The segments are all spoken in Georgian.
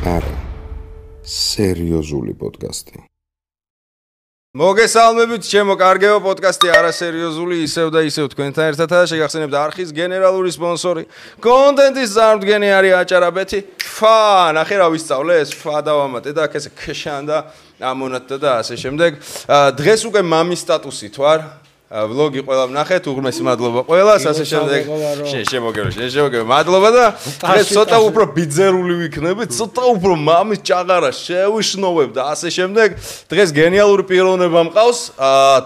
არა, სერიოზული პოდკასტი. მოგესალმებით, ჩემო კარგეო პოდკასტი არასერიოზული ისევ და ისევ თქვენთან ერთადაა. შეგახსენებთ არხის გენერალური სპონსორი. კონტენტის წარმოდგენი არის აჭარაბეთი. ნახე რა ვისწავლე, ეს დავამატე და აქ ესე ქშან და ამონატდა და ასე შემდეგ. დღეს უკვე მამის სტატუსით ვარ. ვლოგი ყველა ვნახეთ, უღრმესი მადლობა ყველას, ასე შემდეგ. შემოგერო. მადლობა და დღეს ცოტა უფრო ბიძერული ვიქნებით, ცოტა უფრო მამის ჭაღარა შევიშნოვებ და ასე შემდეგ. დღეს გენიალური პიროვნება მყავს.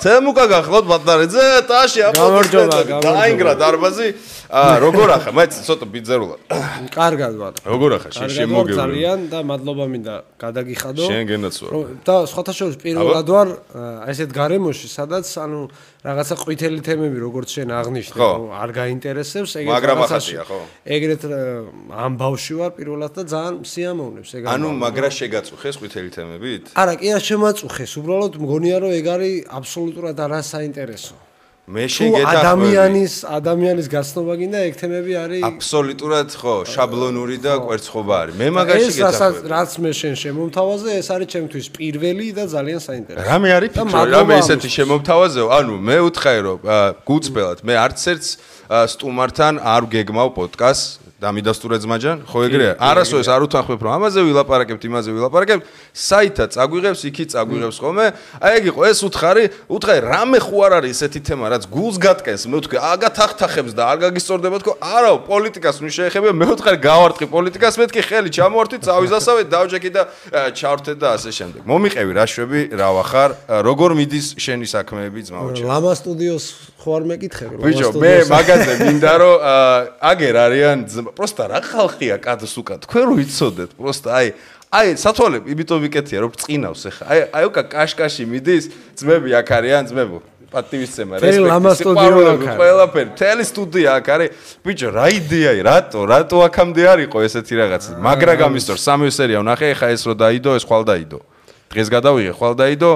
თემუკა გახლავთ ბატარიძე, ტაში აპლოდისმენტები. დაინგრა დარბაზი. როგორ ახლა? მე ცოტა ბიძერულად. კარგად ვარ. როგორ ახლა? შემოგერო. ძალიან და მადლობა მინდა გადაგიხადო. შენ გენაც ვარ. და სხვათა შორის პირველად ვარ ესეთ გარემოში, სადაც ანუ რაღაცა ყვითელი თემები როგორც შენ აღნიშნე, არ გაინტერესებს, ეგრეთ ამ ბავში ვარ პირველად და ძალიან სიამოვნებს ეგ. ანუ მაგრა შეგაწუხეს ყვითელი თემებით? არა, კი არ შემაწუხეს, უბრალოდ მგონია რომ ეგ არის აბსოლუტურად არასაინტერესო. მე შეგეთახმები. ადამიანის გაცნობა გინდა ეგ თემები არის აბსოლუტურად შაბლონური და კვერცხობა არის. მე მაგაში გეთახმები. რაც მე შენ შემომთავაზე, ეს არის ჩემთვის პირველი და ძალიან საინტერესო. რამე არის ფიქრო, რამე ესეთი შემომთავაზეო? ანუ მე უთხარი რომ გუწბელად, მე არც ერთს სტუმართან არ გეგმავ პოდკასტს. დამიდასტურე ძმაჯან, ხო ეგრეა? არასოდეს არ უთანხმებ რომ ამაზე ვილაპარაკებთ, იმაზე ვილაპარაკებთ, საითაც წაგვიღებს, იქით წაგვიღებს ხოლმე. აი ეგ იყო, ეს უთხარი, რამე ხო არ არის ესეთი თემა, რაც გულს გატკენს, მე ვთქვი, აგათახთახებს და არ გაგისწორდება თქო, არა, პოლიტიკას ნუ შეეხებია, მე ვთქვი, გავარტყი პოლიტიკას, მეთქი ხელი ჩამოვართვით, წავიზასავე, დავჯექი და ჩავრთე და ასე შემდეგ. მომიყევი რა შვები, რა ვახარ, როგორ მიდის შენი საქმეები ძმაოჩე? ლამა სტუდიოს ხო არ მეკითხები, ბიჭო, მე მაგაზე მინდა რომ აგერ არიან просто რა ხალხია კადს უკან თქვენ რო იცოდეთ просто აი სათვალე იმიტომ ვიკეთია რომ წინავს ახლა აი უკა კაშკაში მიდის ძმები აქ არიან ძმებო პატივისცემა რესპექტი ყველაფერი მთელი სტუდია აქ არის ბიჭო რა იდეაა რატო აქამდე არ იყო ესეთი რაღაც მაგრა გამისტორ სამი სერია ვნახე ახლა ეს რო დაიდო ეს ხვალ დაიდო დღეს გადავიღე ხვალ დაიდო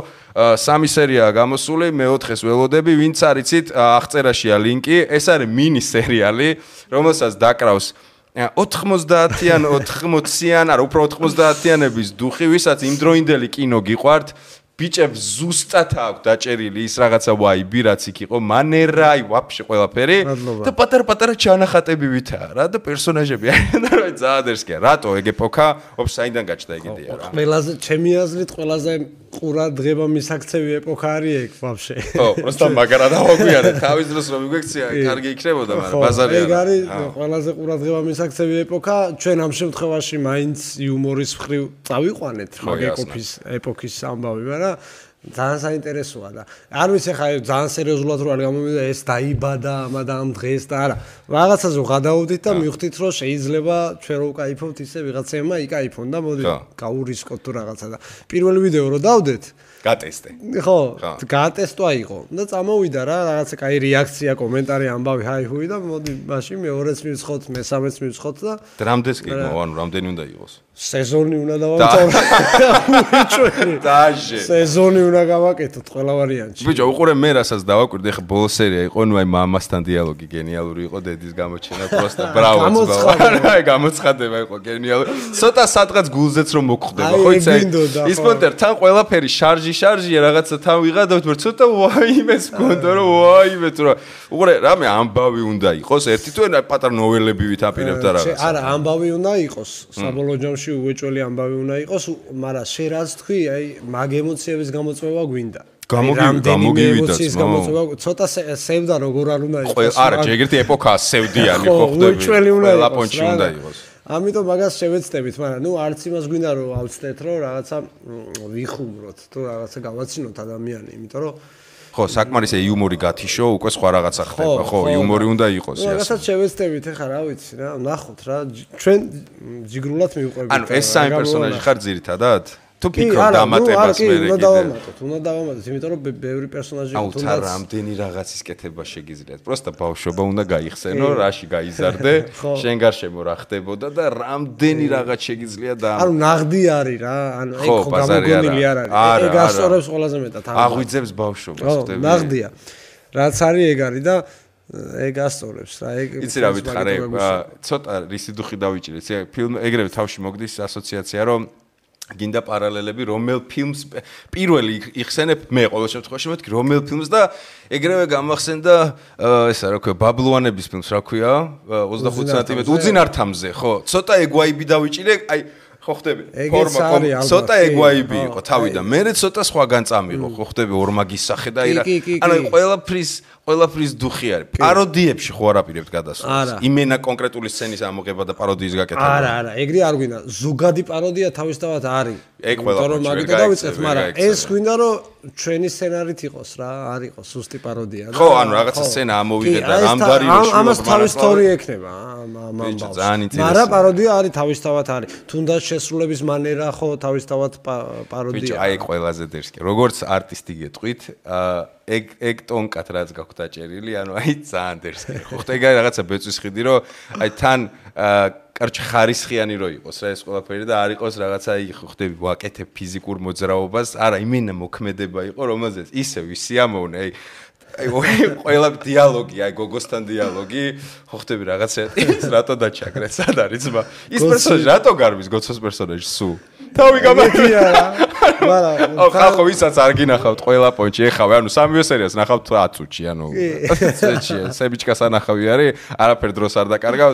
სამი სერიაა გამოსული მეოთხეს ველოდები ვინც არიცით აღწერაშია ლინკი ეს არის მინი სერიალი რომელსაც დაკრავს 90-იან 80-იან არა უფრო 90-იანების დუხი ვისაც იმდროინდელი კინო გიყვართ ბიჭებს ზუსტად აქვს დაჭერილი ის რაღაცა ვაიბი რაც იქ იყო მანერა აი ვაფშე ყველაფერი და პატარ-პატარა ჩანახატები ვითაა რა და პერსონაჟები არიან და ძალიან ერსკია რატო ეგ ეპოქა ოფ საიდან გაჩნდა ეგ იდეა რა ყველაზე ჩემი აზრით ყველაზე ყურა დღება მისაქცევი ეპოქა არის ეგ ვაფშე ხო просто მაგარა დავაგვიანე თავის დროს რომ მიგექცია კარგი იქნებოდა მაგრამ ბაზარი არა ეგ არის ყველაზე ყურა დღება მისაქცევი ეპოქა ჩვენ ამ შემთხვევაში მაინც იუმორის მხრივ წავიყვანეთ მაგ ეპოქის ამბავი მაგრამ ძალიან საინტერესოა და არ ვიცი ხა ძალიან სერიოზულად რო არ გამომივიდა ეს დაიბადა ამ დღეს და არა რაღაცაზე ვღადაოდით და მივხვდით რომ შეიძლება ჩვენ რო ვკაიფობთ ისე ვიღაცებმა იკაიფონ და მოდი გაურისკოთ თუ რაღაცა და პირველი ვიდეო რო დავდეთ გატესტე ხო გატესტვა იყო და წამოვიდა რა რაღაცა კაი რეაქცია კომენტარი ამბავი ჰაი-ჰუი და მოდი მაშინ მეორეც მივცხოთ მესამეც მივცხოთ და დრამდეს კი ანუ რამდენი უნდა იყოს სეზონი უნდა დავამთავროთ დაჟე სეზონი უნდა გავაკეთოთ ყველა ვარიანტში ბიჭო უყურე მე რასაც დავაკვირდი ახლა ბოლო სერია იყო ნუ აი მამასთან დიალოგი გენიალური იყო დედის გამოჩენა просто ბრავო აი გამოცხადება იყო გენიალური ცოტა სადღაც გულზეც რომ მოგხვდება ხო იცი ის პონტერ თან ყველაფერი შარჟია რაღაცა თან ვიღადავთ მაგრამ ცოტა ვაიმეს გქონდა რომ ვაიმე თუ რა უყურე რამე ამბავი უნდა იყოს ერთი თუ პატარა ნოველები ვითაპირებთ რაღაცა არა ამბავი უნდა იყოს საბოლოო ჯამში უეჭველი ამბავი უნდა იყოს მაგრამ შე რაც თქვი აი მაგ ემოციების გამოწვევა გვინდა გამოგივიდა ცოტა სევდა როგორ არ უნდა იყოს არა ჯეგერთი ეპოქა სევდიანი ხო ხდები ყველა პონჩი უნდა იყოს ამიტომ მაგას შევეცდებით მაგრამ ნუ არც იმას გვინდა რომ ავწდეთ რომ რაღაცა ვიხუმროთ თუ რაღაცა გავაცინოთ ადამიანი იმიტომ რომ ხო საკმარისე იუმორი გათიშო უკვე სხვა რაღაცა ხდება ხო იუმორი უნდა იყოს ეს რაღაცა შევეცდებით ახლა რა ვიცი რა ნახოთ რა ჩვენ ჯიგრულად მივყვებით ანუ ეს სამი პერსონაჟი ხარ ძირითადად თუ ფიქრობ დამატებას მე უნდა დავამატოთ იმიტომ რომ ბევრი პერსონაჟი თუნდაც აუ რამდენი რაღაცის კეთება შეგიძლიათ просто ბავშვობა უნდა გაიხსენო რაში გაიზარდე შენ გარშემო რა ხდებოდა და რამდენი რაღაც შეგიძლია და ანუ ნაღდი არის რა ანუ ეგ ხო გამოგონილი არ არის ეგ ასწორებს ყველაზე მეტად აღვიძებს ბავშვობას ხდები ნაღდია რაც არის ეგ არის და ეგ ასწორებს რა, ეგ იცი რა ვითხარე, ცოტა რისი დუხი დავიჭირე. ფილმ ეგრევე თავში მოგდის ასოციაცია, რომ გინდა პარალელები რომელ ფილმს პირველი იხსენებ მე ყოველ შემთხვევაში მეთქი რომელ ფილმს და ეგრევე გამახსენდა ესა რა ქვია ბაბლუანების ფილმს რა ქვია 25 სანტიმეტრი უძინართამზე ხო ცოტა ეგ ვაიბი დავიჭირე აი ხო ხდები ფორმა ცოტა ეგ ვაიბი იყო თავიდან მე ცოტა სხვაგან წამიღო ხო ხდები ორმაგის სახე და ანუ ყველაფრის დუხი არის პაროდიებში ხო არაპირებთ გადასვლას იმენა კონკრეტული სცენის ამოღება და პაროდიის გაკეთება არა ეგრე არ გვინდა ზოგადი პაროდია თავისთავად არის ეგ ყველაფერი მაგით დავიწყეთ მაგრამ ეს გვინდა რომ ჩვენი სცენარით იყოს რა არ იყოს სუსტი პაროდია ხო ანუ რაღაცა სცენა ამოვიღეთ და რამდარი რომ ამას თავის სტორი ექნება მაგრამ პაროდია არის თავისთავად არის თუნდაც შესრულების მანერა ხო თავისთავად პაროდია ბიჭო აი ყველაზე დერსკი როგორც არტისტი გეტყვით ეგ ტონკად რაც გაქვთ დაჭერილი ანუ აი ძალიან დერსკი ხო ხტე ეგ რაღაცა ბეწვის ხიდი რომ აი თან კარჩ ხარისხიანი რო იყოს რა ეს ყველაფერი და არ იყოს რაღაცა ხო ხდები ვაკეთებ ფიზიკურ მოძრაობას არა იმენა მოქმედება იყო რომელზეც ისე ვისიამოვნე აი ყველა დიალოგი აი გოგოსთან დიალოგი ხო ხდები რაღაცა ის რატო დაჩაგრე სად არის ძმა ის პერსონაჟი რატო გარბის გოცოს პერსონაჟი სუ თავი გამარჯვია მაგრამ ხახო ვისაც არ გინახავთ ყველა პონჩი ეხავე ანუ სამივე სერიას ნახავთ 10 წუთში ანუ წეთში სებიჩკას ანახავი არის არაფერ დროს არ დაკარგავ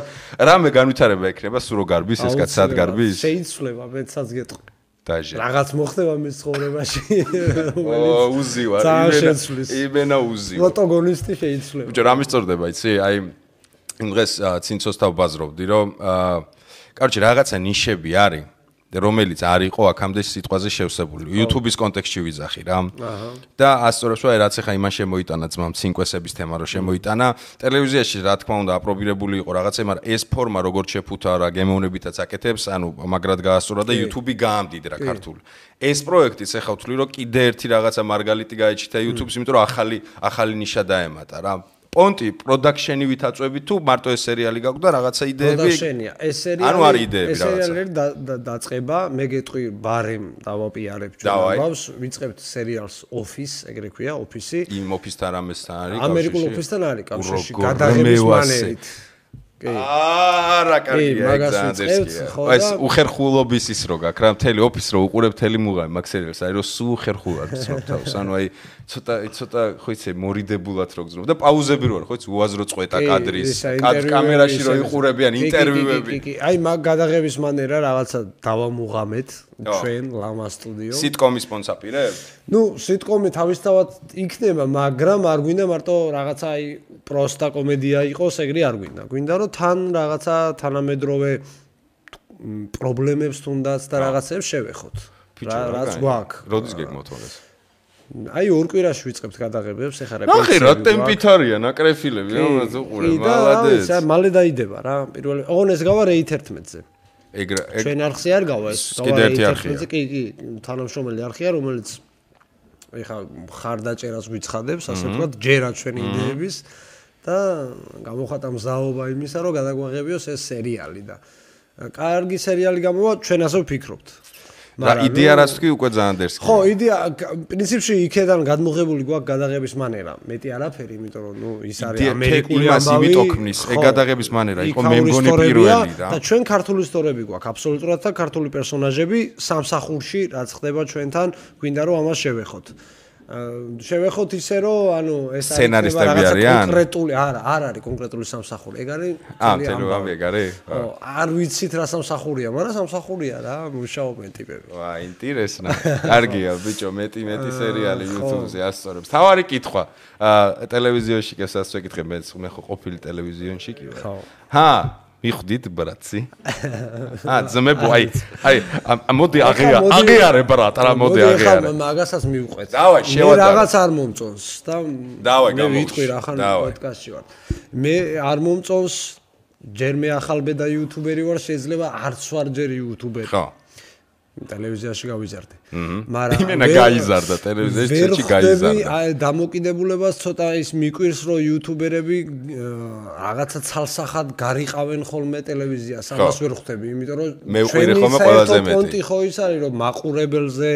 რამე განვითარება ექნება სულ რო გარბის ეს კაც სად გარბის შეიცვლება მეცაც გეტყვი დაჟე რაღაც მოხდება მის ცხოვრებაში უზივარ იმენა უზივარ პროტაგონისტი შეიცვლება ბიჭო რა მისწორდება იცი აი იმ დღეს ცინცოსთან ვბაზრობდი რომ კაროჩე რაღაცა ნიშები არის რომელიც არ იყო აქამდე სიტყვაზე შევსებული. YouTube-ის კონტექსტში ვიზახი რა. და ასწორებს რომ რაც ახლა იმან შემოიტანა ძმამ ცინკვესების თემა რო შემოიტანა, ტელევიზიაში რა თქმა უნდა აპრობირებული იყო რაღაცა, მაგრამ ეს ფორმა როგორც შეფუთა რა გემოვნებითაც აკეთებს, ანუ მაგრად გაასწორა და YouTube-ი გაამდიდრა ქართული. ეს პროექტიც ახლა ვთვლი რომ კიდე ერთი რაღაცა მარგალიტი გაეჩითა YouTube-ს, იმიტომ რომ ახალი ნიშა დაემატა რა. პონტი პროდაქშენი ვითაწვევი თუ მარტო ეს სერიალი გაგვდა რაღაცა იდეები პროდაქშენია ეს სერიალი ანუ არის იდეები რაღაცა ეს სერიალი დაწყება მე გეტყვი ბარემ დავაპიარებ ჩვენ ამბავს ვიწყებთ სერიალს Office ეგრე ქვია Office იმ Office-თან რამესთან არის ამერიკულ Office-თან არის კავშირში გადაღების მანერით არა კარგია ეგზანდერსკია ეს უხერხულობის ის რო გაქვს რა მთელი Office რო უყურებ მთელი მუღამი მაგ სერიალს აი რო სულ ხერხულად გძნობ თავს ანუ აი ცოტა ხო იცი მორიდებულად რო გძნობ და პაუზები რო არის ხო იცი უაზრო წვეტა კადრის კამერაში რო იყურებიან ინტერვიუები კი აი მაგ გადაღების მანერა რაღაცა დავამუღამეთ ჩვენ ლამა სტუდიო სიტკომის სპონსორირებ ნუ სიტკომი თავისთავად იქნება მაგრამ არ გვინდა მარტო რაღაცა აი პროსტა კომედია იყოს ეგრე არ გვინდა გვინდა რომ თან რაღაცა თანამედროვე პრობლემებს თუნდაც და რაღაცებს შევეხოთ რაც გვაქვს როდის გეგმოთვალეს აი ორ კვირაში ვიწყებთ გადაღებებს ეხლა ნახე რა ტემპით არიან აკრეფილები რომელიც უყურე მალადეც მალე დაიდება რა პირველი ოღონ ეს გავა რეით 11-ზე ეგ ჩვენ არხზე არ გავა ეს კიდე ერთი არხია კი თანამშრომელი არხია რომელიც ეხლა ხარდაჭერას გვიცხადებს ასე ვთქვათ ჯერა ჩვენი იდეების და გამოხატა მზაობა იმისა რომ გადაგვაღებიოს ეს სერიალი და კარგი სერიალი გამოვა ჩვენ ასე ვფიქრობთ რა იდეა რაც თქვი უკვე ძალიან დერსკია ხო იდეა პრინციპში იქედან გადმოღებული გვაქვს გადაღების მანერა მეტი არაფერი იმიტომ რომ ნუ ის არის ამერიკული ამბავი იმით ოქმნის ეგ გადაღების მანერა იყო მე მგონი პირველი რა და ჩვენ ქართული ისტორიები გვაქვს აბსოლუტურად და ქართული პერსონაჟები სამსახურში რაც ხდება ჩვენთან გვინდა რომ ამას შევეხოთ შევეხოთ ისე რომ ანუ ეს სცენარისტები არიან კონკრეტული არა არ არის კონკრეტული სამსახური ეგ არის ამბავი ეგ არის არ ვიცით რა სამსახურია მაგრამ სამსახურია რა მუშაობენ ტიპები ვა ინტერესნა კარგია ბიჭო მეტი სერიალი YouTube-ზე ასწორებს თავარი კითხვა ტელევიზიონში კესაც ვეკითხე მე ხო ყოფილი ტელევიზიონში კი ვარ ჰა მიხდით ბრატი ძმებო აი მოდი აღიარე ბრატ რა მოდი აღიარე მაგასაც მივყვეთ დავაი შევადარე მე რაღაც არ მომწონს და დავაი მე ვიტყვი რა ხან პოდკასტში ვარ მე არ მომწონს ჯერ მე ახალბედა იუთუბერი ვარ შეიძლება არც ვარ ჯერ იუთუბერი ხო ტელევიზიაში გავიზარდე მაგრამ იმენა გაიზარდა ტელევიზიაში გაიზარდა აი დამოკიდებულებას ცოტა ის მიკვირს რომ იუთუბერები რაღაცა ცალსახად გარიყავენ ხოლმე ტელევიზიას ამას ვერ ხვდები იმიტომ რომ მე ვყვირე ხოლმე ყველაზე მეტი პონტი ხო ის არის რომ მაყურებელზე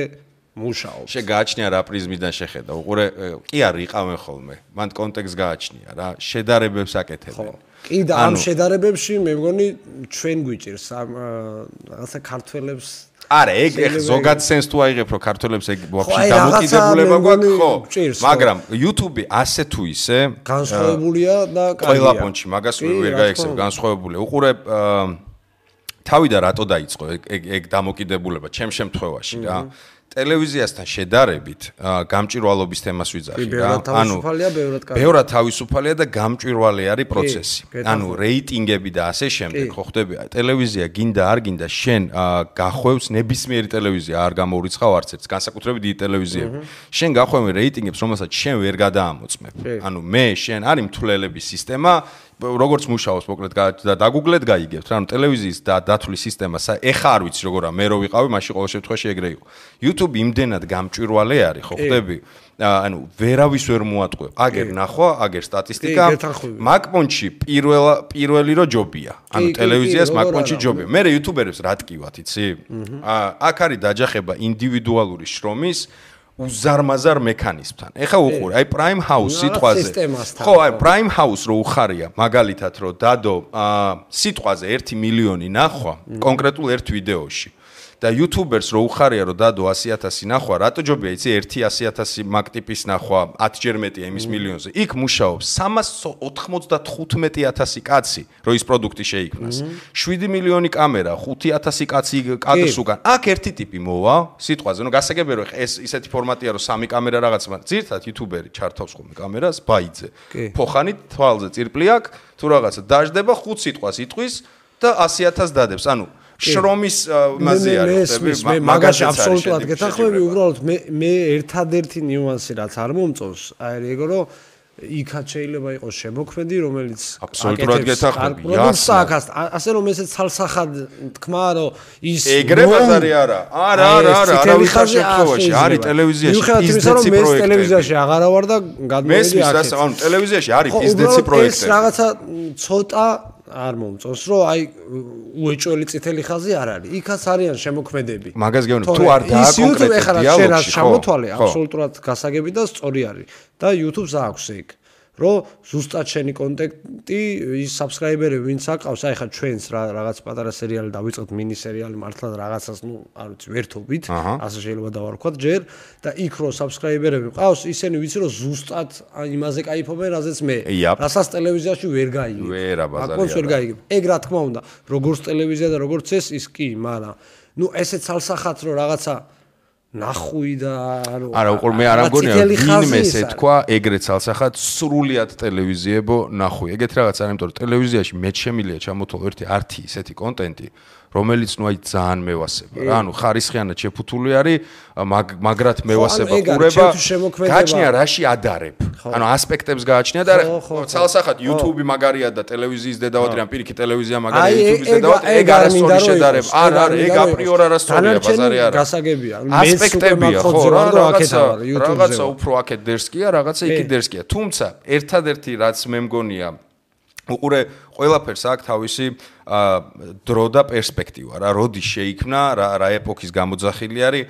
მუშაობს. შეგააჩნია რა პრიზმიდან შეხედა. უყურე, კი არ იყავენ ხოლმე. მან კონტექსტ გააჩნია რა, შედარებებს აკეთებენ. კი და ამ შედარებებში მე მგონი ჩვენ გვიჭირს რაღაცა ქართველებს არა, ეგ ზოგად სენს თუ აიღებ, რომ ქართველებს ეგ ვაფშე დამოკიდებულება გვაქვს, ხო? მაგრამ YouTube ასე თუ ისე განსხვავებულია და ყველა პონჩი მაგას ვერ გაექცევ, განსხვავებული. უყურე, თავი და რატო დაიწყო ეგ დამოკიდებულება ჩემ შემთხვევაში რა? ტელევიზიასთან შედარებით გამჭვირვალობის თემას ვიძახი რა. ანუ ბევრად თავისუფალია და გამჭვირვალე არის პროცესი. ანუ რეიტინგები და ასე შემდეგ, ხო ხდები? ტელევიზია გინდა არ გინდა შენ გახვევს ნებისმიერი ტელევიზია არ გამოურიცხავ არც ერთს, განსაკუთრებით დიდი ტელევიზიები. შენ გახვევ რეიტინგებს, რომელსაც შენ ვერ გადაამოწმებ. ანუ მე შენ არის მთვლელების სისტემა როგორც მუშაობს მოკლედ დაგუგლეთ გაიგებთ რა ანუ ტელევიზიის და დათვლის სისტემა ეხა არ ვიცი როგორა მე რო ვიყავი მაშინ ყოველ შემთხვევაში ეგრე იყო YouTube იმდენად გამჭვირვალე არის ხო ხდები ანუ ვერავის ვერ მოატყვე აგერ ნახვა აგერ სტატისტიკა მაგპონჩი პირველი რო ჯობია ანუ ტელევიზიას მაგპონჩი ჯობია მე YouTuber-ებს რა ტკივათ იცი აქ არის დაჯახება ინდივიდუალური შრომის უზარმაზარ მექანიზმთან. ეხა უყურე, აი Prime House სიტყვაზე. ხო, აი Prime House რო უხარია, მაგალითად რო დადო სიტყვაზე 1 მილიონი ნახვა კონკრეტულ ერთ ვიდეოში. და YouTubers რო უხარია რომ დადო 100,000 ნახვა, რატო ჯობია იცი 100,000 მაგ ტიპის ნახვა 10-ჯერ მეტია იმის მილიონზე. იქ მუშაობს 395,000 კაცი, რომ ის პროდუქტი შეიქმნას. 7 მილიონი კამერა, 5,000 კაცი კადრს უკან. აქ ერთი ტიპი მოვა, სიტყვაზე, ნუ გასაგებია რომ ეს ისეთი ფორმატია რომ 3 კამერა რაღაც, მაგრამ ძირთად YouTuberi ჩართავს ხოლმე კამერას, ბაიძე. ფოხანით თვალზე წირპლი აქვს, თუ რაღაცა დაждდება 5 სიტყვას იტყვის და 100,000 დადებს. ანუ შრომის მასე არის მე მაგაში აბსოლუტურად გეთანხმები უბრალოდ მე ერთადერთი ნიუანსი რაც არ მომწონს აი ეგო რომ იქაც შეიძლება იყოს შემოქმედი რომელიც აბსოლუტურად გეთანხმები ასე რომ ესეც ცალსახად თქმა რომ ის ეგრე ბაზარი არა არავის შემთხვევაში არის ტელევიზიაში ბიზნესი პროექტები მე ტელევიზიაში აღარა ვარ და გადმოვიდი აქ ანუ ტელევიზიაში არის ბიზნესი პროექტები ეს რაღაცა ცოტა არ მომწონს რომ აი უეჭველი წითელი ხაზი არ არის. იქაც არიან შემოქმედები. მაგას გეუბნები თუ არ დააკონკრეტებ დიალოგში ხო? შემოთვალე აბსოლუტურად გასაგები და სწორი არის. და YouTube-ს აქვს ეგ. რომ ზუსტად შენი კონტენტი ის subscriber-ები ვინც აკავს, აი ხა ჩვენს რაღაც პატარა სერიალი დავიწყოთ mini სერიალი მართლა რაღაცას, ნუ არ ვიცი, ვერთობით, ასე შეიძლება დავარქვათ ჯერ და იქ რო subscriber-ები ყავს, ისინი ვიცი რომ ზუსტად იმაზე кайფობენ, რაზეც მე. რასაც ტელევიზიაში ვერ გაიგებ. ვერა ბაზარი. აკონს ვერ გაიგებ. ეგ რა თქმა უნდა, როგორც ტელევიზია და როგორც ეს ის კი, მაგრამ ნუ ესეც ცალსახად რო რაღაცა ნახვი და არა უყურ მე არ ამგონია ვინმე ესე თქვა ეგრეთ ცალსახად სრულიად ტელევიზიებო ნახვი ეგეთ რაღაც არ იმიტომ რომ ტელევიზიაში მე შემილია ჩამოთვალო ერთი არტი ისეთი კონტენტი რომელიც ნუ აი ძალიან მევასება რა ანუ ხარისხიანად შეფუთული არის მაგრად მევასება ყურება გააჩნია რაში ადარებ ანუ ასპექტებს გააჩნია და ცალსახად YouTube მაგარია და ტელევიზიის დედავატი ან პირიქით ტელევიზია მაგარია YouTube-ის დედავატი ეგ არასწორი შედარება არა ეგ აპრიორ არასწორია ბაზარი არა გასაგებია ასპექტებია ხო რაღაცა უფრო აქეთ დერსკია რაღაცა იქით დერსკია თუმცა ერთადერთი რაც მე მგონია უყურე ყველაფერს აქვს თავისი დრო და პერსპექტივა რა როდის შეიქმნა რა ეპოქის გამოძახილი არის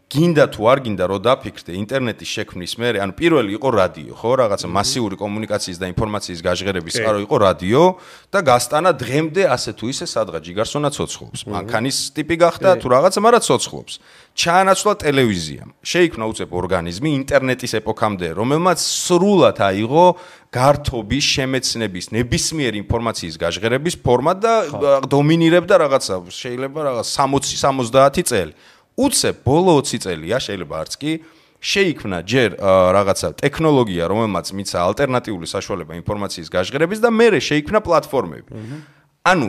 გინდა თუ არ გინდა რომ დაფიქრდე ინტერნეტის შექმნის მერე ანუ პირველი იყო რადიო ხო რაღაცა მასიური კომუნიკაციის და ინფორმაციის გაჟღერების წყარო იყო რადიო და გასტანა დღემდე ასე თუ ისე სადღაც ჯიგარსონა ცოცხლობს მანქანის ტიპი გახდა თუ რაღაცა მაგრამ ცოცხლობს ჩაანაცვლა ტელევიზიამ შეიქმნა უცებ ორგანიზმი ინტერნეტის ეპოქამდე რომელმაც სრულად აიღო გართობის შემეცნების ნებისმიერი ინფორმაციის გაჟღერების ფორმა და დომინირებდა რაღაცა შეიძლება რაღაც 60-70 წელი უცებ ბოლო 20 წელია შეიძლება არც კი შეიქმნა ჯერ რაღაცა ტექნოლოგია რომელმაც მიცა ალტერნატიული საშუალება ინფორმაციის გაჟღერების და მერე შეიქმნა პლატფორმები ანუ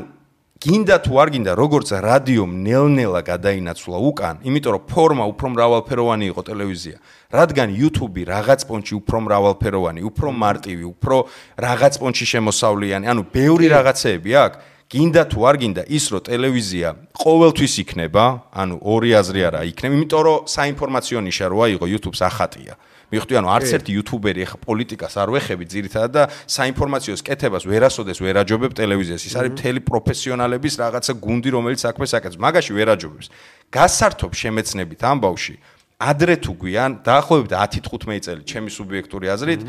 გინდა თუ არ გინდა როგორც რადიომ ნელ-ნელა გადაინაცვლა უკან იმიტომ რომ ფორმა უფრო მრავალფეროვანი იყო ტელევიზია რადგან YouTube რაღაც პონჩი უფრო მრავალფეროვანი უფრო მარტივი უფრო რაღაც პონჩი შემოსავლიანი ანუ ბევრი რაღაცეები აქვს გინდა თუ არ გინდა ის რომ ტელევიზია ყოველთვის იქნება ანუ ორი აზრი არა იქნება იმიტომ რომ საინფორმაციო ნიშა რო აიღო YouTube-ს ახატია მიხვდი ანუ არც ერთი YouTuber-ი ახლა პოლიტიკას არ ვეხები ძირითადად და საინფორმაციო კეთებას ვერასოდეს ვერ აჯობებ ტელევიზიას ის არის მთელი პროფესიონალების რაღაცა გუნდი რომელიც საქმეს აკეთებს მაგაში ვერ აჯობებს გასართობ შემეცნებით ამბავში ადრე თუ გვიან დაახლოებით 10-15 წელი ჩემი სუბიექტური აზრით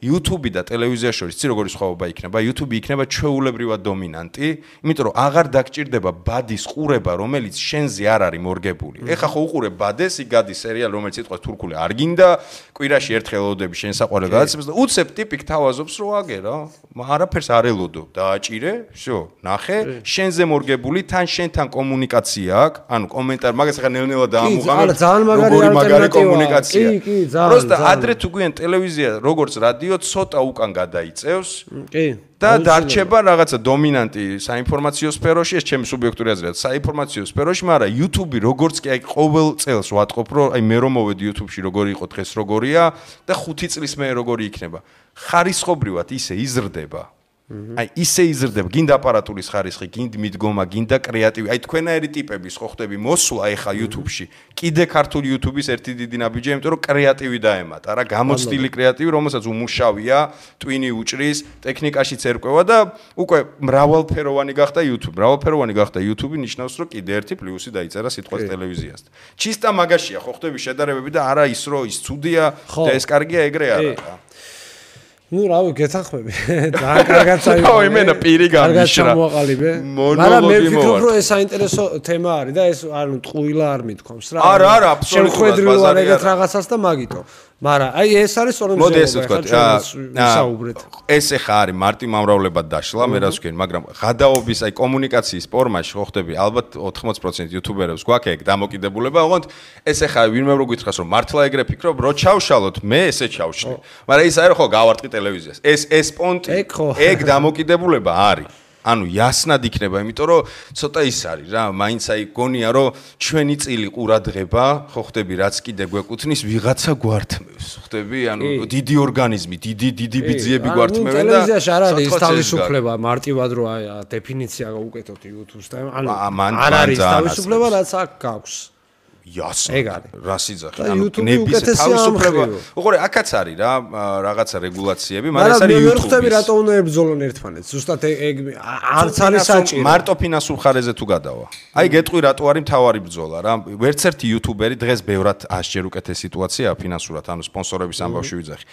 YouTube და ტელევიზია შორის ცი როგორი სხვაობა იქნება? YouTube იქნება ჩვეულებრივად დომინანტი, იმიტომ რომ აღარ დაგჭირდება ბადის ყურება, რომელიც შენზე არ არის მორგებული. ეხლა ხო უყურებ ბადეს, იქ გადის სერიალი, რომელიც სიტყვა თურქული არ გინდა, კვირაში ერთხელ ელოდები შენ საყვარელ გადაცემას და უცებ ტიპი გთავაზობს რომ აგერა, არაფერს არ ელოდო, დააჭირე, всё, ნახე, შენზე მორგებული, თან შენთან კომუნიკაცია აქვს, ანუ კომენტარი, მაგას ახლა ნელ-ნელა დაამუღამებ, როგორი მაგარი კომუნიკაცია. კი, ძალიან. просто ადრე თუ გვიან ტელევიზია, როგორც რადიო ცოტა უკან გადაიწევს. კი. და დარჩება რაღაცა დომინანტი საინფორმაციო სფეროში, ეს ჩემი სუბიექტური აზრია, საინფორმაციო სფეროში, მაგრამ YouTube როგორც კი აი ყოველ წელს ვატყობ, რომ აი მე რომ მოვედი YouTube-ში როგორი იყო დღეს როგორია და 5 წლის მე როგორი იქნება. ხარისხობრივად ისე იზრდება. აი ისე იზრდება, გინდა აპარატურის ხარისხი, გინდა მიდგომა, გინდა კრეატივი. აი თქვენაერი ტიპების ხო ხდები მოსვლა ეხა YouTube-ში. კიდე ქართული YouTube-ის ერთი დიდი ნაბიჯია, იმიტომ რომ კრეატივი დაემატა რა, გამოცდილი კრეატივი, რომელსაც უმუშავია, ტვინი უჭრის, ტექნიკაშიც ერკვევა და უკვე მრავალფეროვანი გახდა YouTube. მრავალფეროვანი გახდა YouTube ნიშნავს, რომ კიდე ერთი პლუსი დაიწერა სიტყვას ტელევიზიასთან. ჩისტა მაგაშია ხო ხდები შედარებები და არა ის რომ ის ცუდია და ეს კარგია ეგრე არა რა. ნუ რავი გეთანხმები. ძალიან კარგად წაიღო. ой, მენა პირი გამიშრა. კარგად ჩამოაყალიბე. მაგრამ მე ვფიქრობ, რომ ეს საინტერესო თემა არის და ეს ანუ ტყუილა არ მithkoms რა. არა, აბსოლუტურად შეხვედრივ არ ეგეთ რაღაცას და მაგიტო. მაგრამ აი ეს არის სწორედ მოდი ესე ვთქვა, ვისაუბრეთ. ეს ახლა არის მარტი მომრავლებად დაშლა, მე რაც ვქენ, მაგრამ გადაობის აი კომუნიკაციის ფორმაში ხო ხდები, ალბათ 80% იუთუბერებს გვაქვს ეგ დამოკიდებულება, ოღონდ ეს ახლა ვინმე რო გითხრას, რომ მართლა ეგრე ფიქრობ, რო ჩავშალოთ, მე ესე ჩავშლი. მაგრამ ის არის ხო გავარტყი ტელევიზიას. ეს პონტი, ეგ დამოკიდებულება არის. ანუ ясნად იქნება, იმიტომ რომ ცოტა ის არის რა, მაინც აი გონია რომ ჩვენი წილი ყურადღება, ხო ხდები, რაც კიდე გვეკუთვნის, ვიღაცა გვართმევს, ხდები, ანუ დიდი ორგანიზმი, დიდი ბიძიები გვართმევენ და ტელევიზიაში არ არის თავისუფლება, მარტივად რო აი დეფინიცია გაუკეთოთ YouTube-ს და ანუ არ არის თავისუფლება, რაც აქ გაქვს. ясно. რა სიძახი, ანუ ნების თავისუფლება. უყურე, აქაც არის რა, რაღაცა რეგულაციები, მაგრამ ეს არის YouTube-ის. მე ვხვდები რატო უნდა ებრძოლონ ერთმანეთს. ზუსტად ეგ არც არის საჭირო. მარტო ფინანსურ ხარეზე თუ გადავა. აი გეტყვი რატო არის მთავარი ბრძოლა რა. ვერცერთი YouTuberi დღეს ბევრად 100-ჯერ უკეთეს სიტუაციაა ფინანსურად, ანუ სპონსორების ამბავში ვიძახი.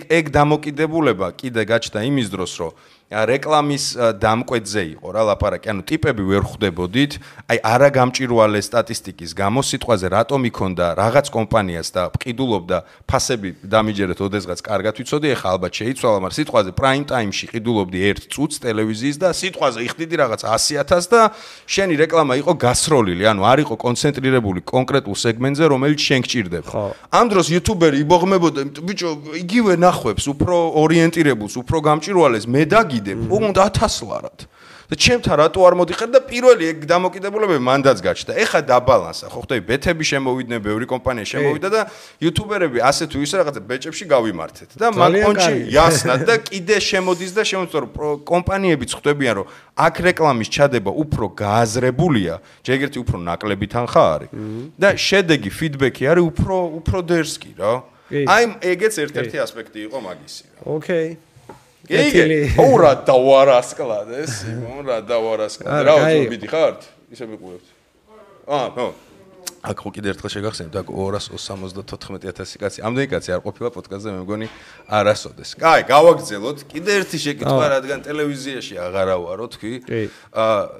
ეგ დამოკიდებულება კიდე გაჩნდა იმის დროს, რომ რეკლამის დამკვეთზე იყო რა ლაპარაკი, ანუ ტიპები ვერ ხვდებოდით, აი არა გამჭირვალე სტატისტიკის გამო სიტყვაზე რატომ იქონდა რაღაც კომპანიას და ყიდულობდა ფასები დამიჯერეთ ოდესღაც კარგად ვიცოდი, ეხლა ალბათ შეიცვალა, მაგრამ სიტყვაზე prime time-ში ყიდულობდი 1 წუთს ტელევიზიის და სიტყვაზე იხდიდი რაღაც 100,000 და შენი რეკლამა იყო გასროლილი, ანუ არ იყო კონცენტრირებული კონკრეტულ სეგმენტზე, რომელიც შენ გჭირდება. ამ დროს იუთუბერი იბოღმებოდა, ბიჭო, იგივე ნახვებს, უფრო ორიენტირებულს, უფრო გამჭირვალეს მე უნდა 1000 ლარად. და ჩემთან რატო არ მოდიხარ და პირველი ეგ დამოკიდებულებები მანდაც გაჩნდა. ეხა დაბალანსა, ხო ხდები, ბეთები შემოვიდნენ, ბევრი კომპანია შემოვიდა და იუთუბერები ასე თუ ისე რაღაცა ბეჭებში გავიმართეთ. და მაგ პონჩი ясნად და კიდე შემოდის და შემოწორ კომპანიებიც ხვდებიან, რომ აქ რეკლამის ჩადება უფრო გააზრებულია, ჯერგერთი უფრო ნაკლები თანხა არის. და შედეგი, ფიდბექი არის უფრო დერსკი რა. აი ეგეც ერთ-ერთი ასპექტი იყო მაგისი რა. ოკეი. იგი ორა დავარასკლადეს, რა დავარასკლადეს. რა უფრო მიდიხართ? ისე მიყურებთ. ხო. აქ ხო კიდე ერთხელ შეგახსენებთ, აქ 274,000 კაცი. ამდენი კაცი არ ყოფილა პოდკასტზე, მე მგონი არასოდეს. კაი, გავაგრძელოთ. კიდე ერთი შეკითხვა, რადგან ტელევიზიაში აღარა ვარო თქვი.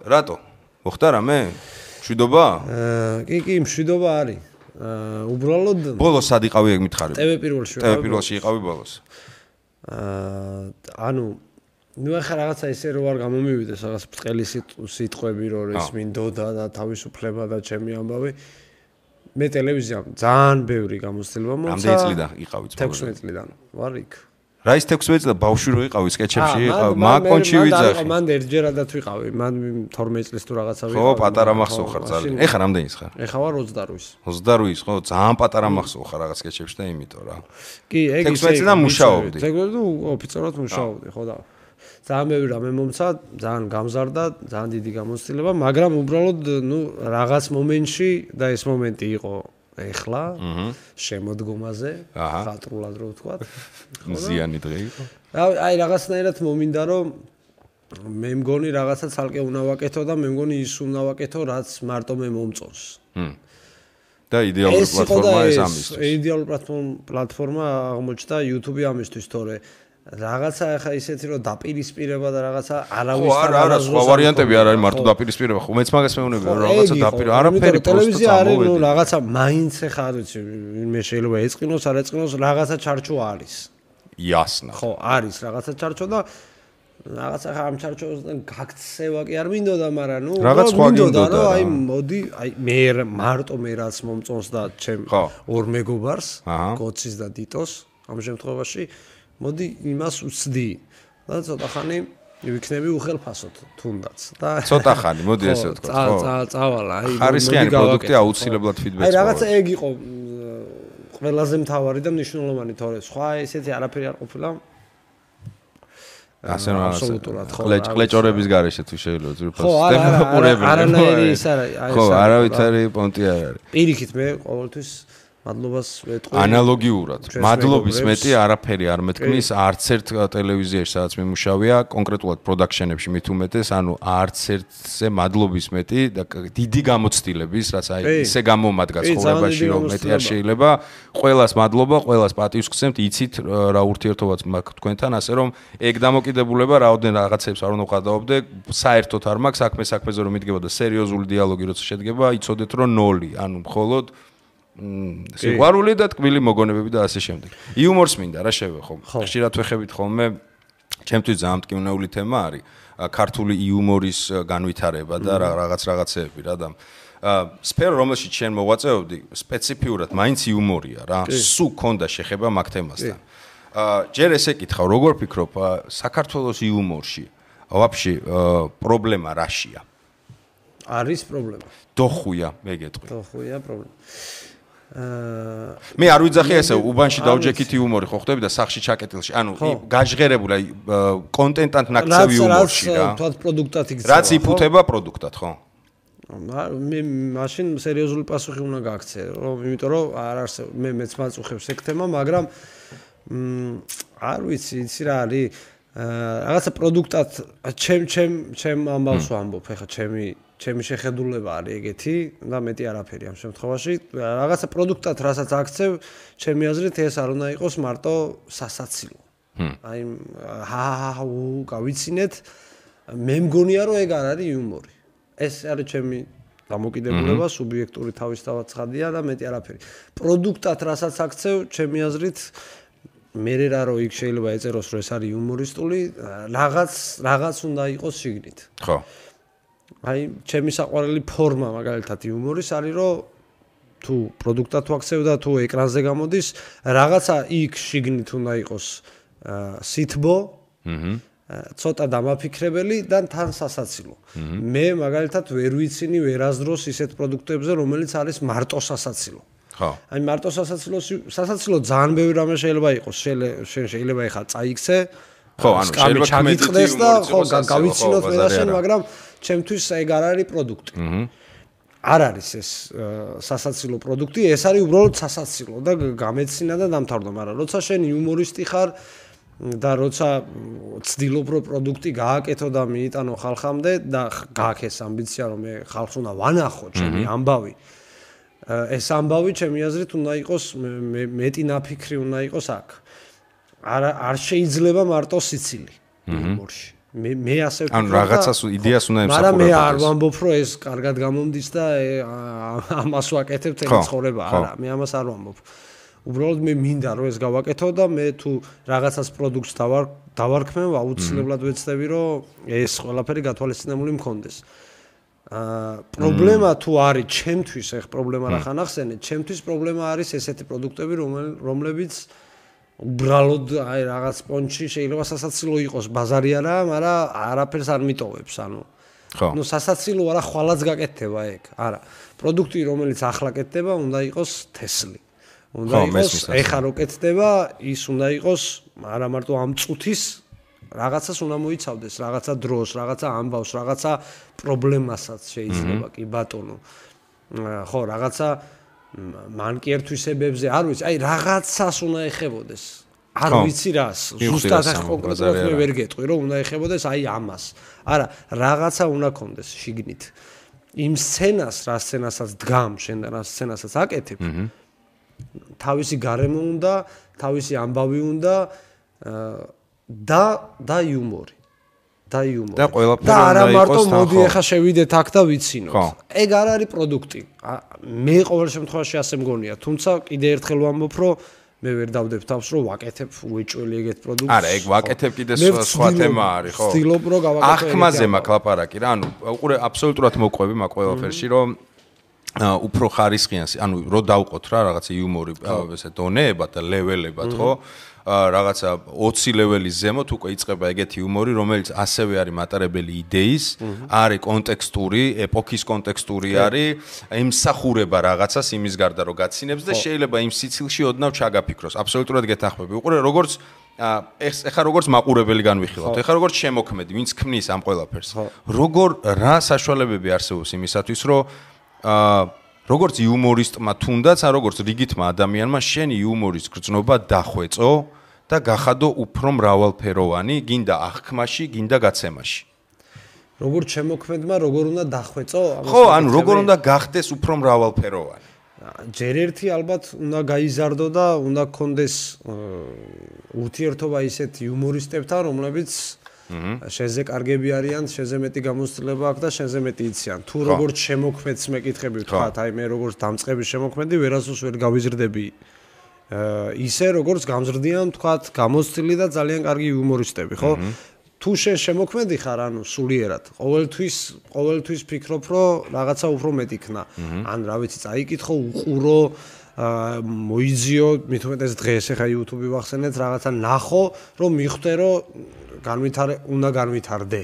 რატო? მოხდა რამე? მშვიდობა? კი, მშვიდობა არის. უბრალოდ ბოლოს სად იყავი ეგ მითხარი? TV პირველში. TV პირველში იყავი ბოლოს. ანუ ნუ ახლა რაღაცა ისე რო არ გამომივიდეს რაღაც ბრწყელი სიტყვები რომ ეს მინდოდა და თავისუფლება და ჩემი ამბავი მე ტელევიზიამ ძალიან ბევრი გამოცდილება მოცა. რამდენი წლიდან იყავით? 16 წლიდან ვარ იქ. რა ის 16 წელი ბავშვი რო იყავი სკეჩებში იყავ მაკონჩი ვიძახი. მან ერთჯერადაც ვიყავი, მან 12 წლის თუ რაღაცა ვიყავი. ხო, პატარა მახსოვ ხარ ძალიან. ეხლა რამდენის ხარ? ეხლა ვარ 28-ის. 28-ის, ხო, ძალიან პატარა მახსოვ ხარ რაღაც სკეჩებში და იმიტომ რა. კი, ეგ ისე. 16 წლიდან მუშაობდი. ზოგადად ოფიციალურად მუშაობდი, ხო და ძალიან ბევრი რამე მომცა, ძალიან გამზარდა, ძალიან დიდი გამოცდილება, მაგრამ უბრალოდ ნუ რაღაც მომენტში და ეს მომენტი იყო ეხლა შემოდგომაზე, ხატრულად რო ვთქვათ. მზიანი დღე იყო. აი რაღაცნაირად მომინდა რომ მე მგონი რაღაცა ცალკე უნდა ვაკეთო და მე მგონი ის უნდა ვაკეთო, რაც მარტო მე მომწონს. და იდეალური პლატფორმა ეს ამისთვის. იდეალური პლატფორმა აღმოჩნდა YouTube ამისთვის, თორე რაღაცა ახლა ისეთი რომ დაპირისპირება და რაღაცა არავისთან არა სხვა ვარიანტები არ არის მარტო დაპირისპირება ხო მეც მაგას მეუბნები რომ რაღაცა არაფერი ტელევიზია არის ნუ რაღაცა მაინც ახლა არ ვიცი მე შეიძლება ეწყინოს არ ეწყინოს რაღაცა ჩარჩო არის იასნა ხო არის რაღაცა ჩარჩო და რაღაცა ამ ჩარჩოსთან გაქცევა კი არ მინდოდა მაგრამ ნუ რაღაც სხვა გინდოდა აი მოდი აი მე მარტო მე რაც მომწონს და ჩემ ორ მეგობარს გოცის და დიტოს ამ შემთხვევაში მოდი იმას უცდი და ცოტა ხანი ვიქნები უხელფასოდ თუნდაც და ცოტა ხანი მოდი ესე ვთქვა ხო წავალა აი ხარისხიანი პროდუქტი აუცილებლად ფიდბექს აი რაღაცა ეგ იყო ყველაზე მთავარი და მნიშვნელოვანი თორე სხვა ესეთი არაფერი არ ყოფილა ასე რომ აბსოლუტურად ხო ყლეჭორების გარეშე თუ შეიძლება ძირფას დემოკრატიული არანაირი ის არა ხო არავითარი პონტი არ არის პირიქით მე ყოველთვის მადლობას ვეტყვი ანალოგიურად მადლობის მეტი არაფერი არ მეთქმის არც ერთ ტელევიზიაში სადაც მიმუშავია კონკრეტულად პროდაქშენებში მით უმეტეს ანუ არც ერთზე მადლობის მეტი და დიდი გამოცდილების რაც აი ისე გამომადგა ცხოვრებაში რომ მეტი არ შეიძლება ყველას მადლობა ყველას პატივს გსცემთ იცით რა ურთიერთობაც მაქვს თქვენთან ასე რომ ეგ დამოკიდებულება რაოდენ რაღაცებს არ უნდა ვყადაობდე საერთოდ არ მაქვს საქმეზე რომ მიდგებოდა სერიოზული დიალოგი როცა შედგება იცოდეთ რომ 0 ანუ მხოლოდ სიყვარული და თქმილი მოგონებები და ასე შემდეგ. იუმორს მინდა რა შევე ხომ. ხშირად ვეხებით ხოლმე ჩემთვის ძალიან მტკივნეული თემა არის ქართული იუმორის განვითარება და რაღაცეები რა და სფერო რომელშიც შენ მოვაწეობდი სპეციფიურად მაინც იუმორია რა. სულ ქონდა შეხება მაგ თემასთან. ჯერ ესე კითხავ როგორ ფიქრობ საქართველოს იუმორში ვაფშე პრობლემა რაშია? არის პრობლემა. დოხუია მე გეტყვი. დოხუია პრობლემა. მე არ ვიძახი ესე უბანში დაუჯექით იუმორი ხო ხდები და სახში ჩაკეტილში ანუ გაჟღერებული აი კონტენტად ნაკცევი იუმორში რა რაც პროდუქტად იქცევა რაც იფუთება პროდუქტად ხო მე მაშინ სერიოზული პასუხი უნდა გააქცე რომ იმიტომ რომ არ არსებობს მე მეც მაწუხებს ეგ თემა მაგრამ არ ვიცი იცი რა არის რაღაცა პროდუქტად ჩემ ამბავს ვამბობ ეხა ჩემი შეხედულება არის ეგეთი და მეტი არაფერი ამ შემთხვევაში რაღაცა პროდუქტად რასაც აქცევ ჩემი აზრით ეს არ უნდა იყოს მარტო სასაცილო აი გავიცინეთ მე მგონია რომ ეგ არ არის იუმორი ეს არის ჩემი დამოკიდებულება სუბიექტური თავისთავად ცხადია და მეტი არაფერი პროდუქტად რასაც აქცევ ჩემი აზრით მე რა რო იქ შეიძლება ეწეროს რომ ეს არის იუმორისტული რაღაც უნდა იყოს შიგნით ხო აი ჩემი საყვარელი ფორმა მაგალითად იუმორის არის რომ თუ პროდუქტად ვაქცევ და თუ ეკრანზე გამოდის რაღაცა იქ შიგნით უნდა იყოს სითბო ცოტა დამაფიქრებელი და თან სასაცილო მე მაგალითად ვერ ვიცინი ვერასდროს ისეთ პროდუქტებზე რომელიც არის მარტო სასაცილო ხო აი მარტო სასაცილო ძალიან ბევრი რამე შეიძლება იყოს შეიძლება ეხლა წაიქცე ხო ანუ შეიძლება ჩაგიწყდეს და ხო გავიცინოთ მე და შენ მაგრამ ჩემთვის ეგ არ არის პროდუქტი. არ არის ეს სასაცილო პროდუქტი, ეს არის უბრალოდ სასაცილო და გამეცინა და დამთავრდა, მაგრამ როცა შენ იუმორისტი ხარ და როცა ცდილობ რომ პროდუქტი გააკეთო და მიიტანო ხალხამდე და გააქვს ეს ამბიცია რომ მე ხალხს უნდა ვანახო ჩემი ამბავი. ეს ამბავი ჩემი აზრით უნდა იყოს მეტი ნაფიქრი უნდა იყოს აქ. არ შეიძლება მარტო სიცილი იუმორში. მე ასე ვფიქრობ. ანუ რაღაცას იდეას უნდა ემსახურებოდეს. მაგრამ მე არ ვამბობ რომ ეს კარგად გამომდის და ამას ვაკეთებ თელი ცხოვრება. არა, მე ამას არ ვამბობ. უბრალოდ მე მინდა რომ ეს გავაკეთო და მე თუ რაღაცას პროდუქტს დავარქმევ, აუცილებლად ვეცდები რომ ეს ყველაფერი გათვალისწინებული მქონდეს. პრობლემა თუ არის ჩემთვის, ეხ პრობლემა რა ხან ახსენეთ, ჩემთვის პრობლემა არის ესეთი პროდუქტები, რომლებიც უბრალოდ აი რაღაც პონჩი შეიძლება სასაცილო იყოს, ბაზარი არა, მაგრამ არაფერს არ მიტოვებს, ანუ. ხო. ნუ სასაცილო არა, ხვალაც გაკეთდება ეგ. არა. პროდუქტი, რომელიც ახლა კეთდება, უნდა იყოს თესლი. უნდა იყოს, ეხა რო კეთდება, ის უნდა იყოს, არა მარტო ამ წუთის რაღაცას უნდა მოიცავდეს, რაღაცა დროს, რაღაცა ამბავს, რაღაცა პრობლემასაც შეიძლება კი ბატონო. ხო, რაღაცა მანკიერთვისებებზე, არ ვიცი, აი რაღაცას უნდა ეხებოდეს. არ ვიცი რას, ზუსტად ახ კონკრეტულად მე ვერ გეტყვი, რომ უნდა ეხებოდეს აი ამას. არა, რაღაცა უნდა კონდეს შიგნით. იმ სცენას, რა სცენასაც დგამ, შენ რა სცენასაც აკეთებ. თავისი გარემო უნდა, თავისი ამბავი უნდა და იუმორი. და ყველაფერი არა მარტო მოდი ახლა შევიდეთ აქ და ვიცინოთ. ეგ არ არის პროდუქტი. მე ყოველ შემთხვევაში ასე მგონია, თუმცა კიდე ერთხელ ვამბობ, რომ მე ვერ დავდებ თავს, რომ ვაკეთებ უეჭველი ეგეთ პროდუქტს. არა, ეგ ვაკეთებ კიდე სხვა თემა არის, ხო? ვცდილობ, რომ გავაკეთო. ახმაზე მაქვს ლაპარაკი რა, ანუ უყურე აბსოლუტურად მოყვები მაგ ყველაფერში, რომ უფრო ხარისხიან, ანუ რო დავყოთ რა რაღაცა იუმორი, ესე დონეებად და ლეველებად, ხო? რაღაცა 20 ლეველის ზემოთ უკვე იწყება ეგეთი იუმორი, რომელიც ასევე არის მატარებელი იდეის, არის კონტექსტური, ეპოქის კონტექსტური არის, ემსახურება რაღაცას იმის გარდა რომ გაცინებს და შეიძლება იმ სიცილში ოდნავ ჩაგაფიქროს. აბსოლუტურად გეთანხმები. უყურე როგორც ეხა როგორც მაყურებელი განვიხილავთ, ეხა როგორც შემოქმედი, ვინც ქმნის ამ ყველაფერს. როგორ რა საშუალებები არსებობს იმისათვის, რომ როგორც იუმორისტმა თუნდაც, ან როგორც რიგითმა ადამიანმა შენი იუმორის გრძნობა დახვეწო და გახადო უფრო მრავალფეროვანი, გინდა აღქმაში, გინდა გაცემაში. როგორც შემოქმედმა, როგორ უნდა დახვეწო? ხო, ანუ როგორ უნდა გახდეს უფრო მრავალფეროვანი? ჯერ ერთი ალბათ უნდა გაიზარდო და უნდა გქონდეს ურთიერთობა ისეთ იუმორისტებთან, რომლებიც შენზე კარგები არიან, შენზე მეტი გამოცდილება აქვს და შენზე მეტი იციან. თუ როგორც შემოქმედს მეკითხები ვთქვათ, აი მე როგორც დამწყების შემოქმედი ვერასდროს ვერ გავიზრდები ისე როგორც გამზრდიან ვთქვათ, გამოცდილი და ძალიან კარგი იუმორისტები, ხო? თუ შენ შემოქმედი ხარ, ანუ სულიერად, ყოველთვის ფიქრობ, რომ რაღაცა უფრო მეტი ქნა. ან რა ვიცი, წაიკითხო, უყურო, მოიძიო, მით უმეტეს დღეს ახლა YouTube-ი ვახსენეთ, რაღაცა ნახო, რომ მიხვდე, რომ უნდა განვითარდე.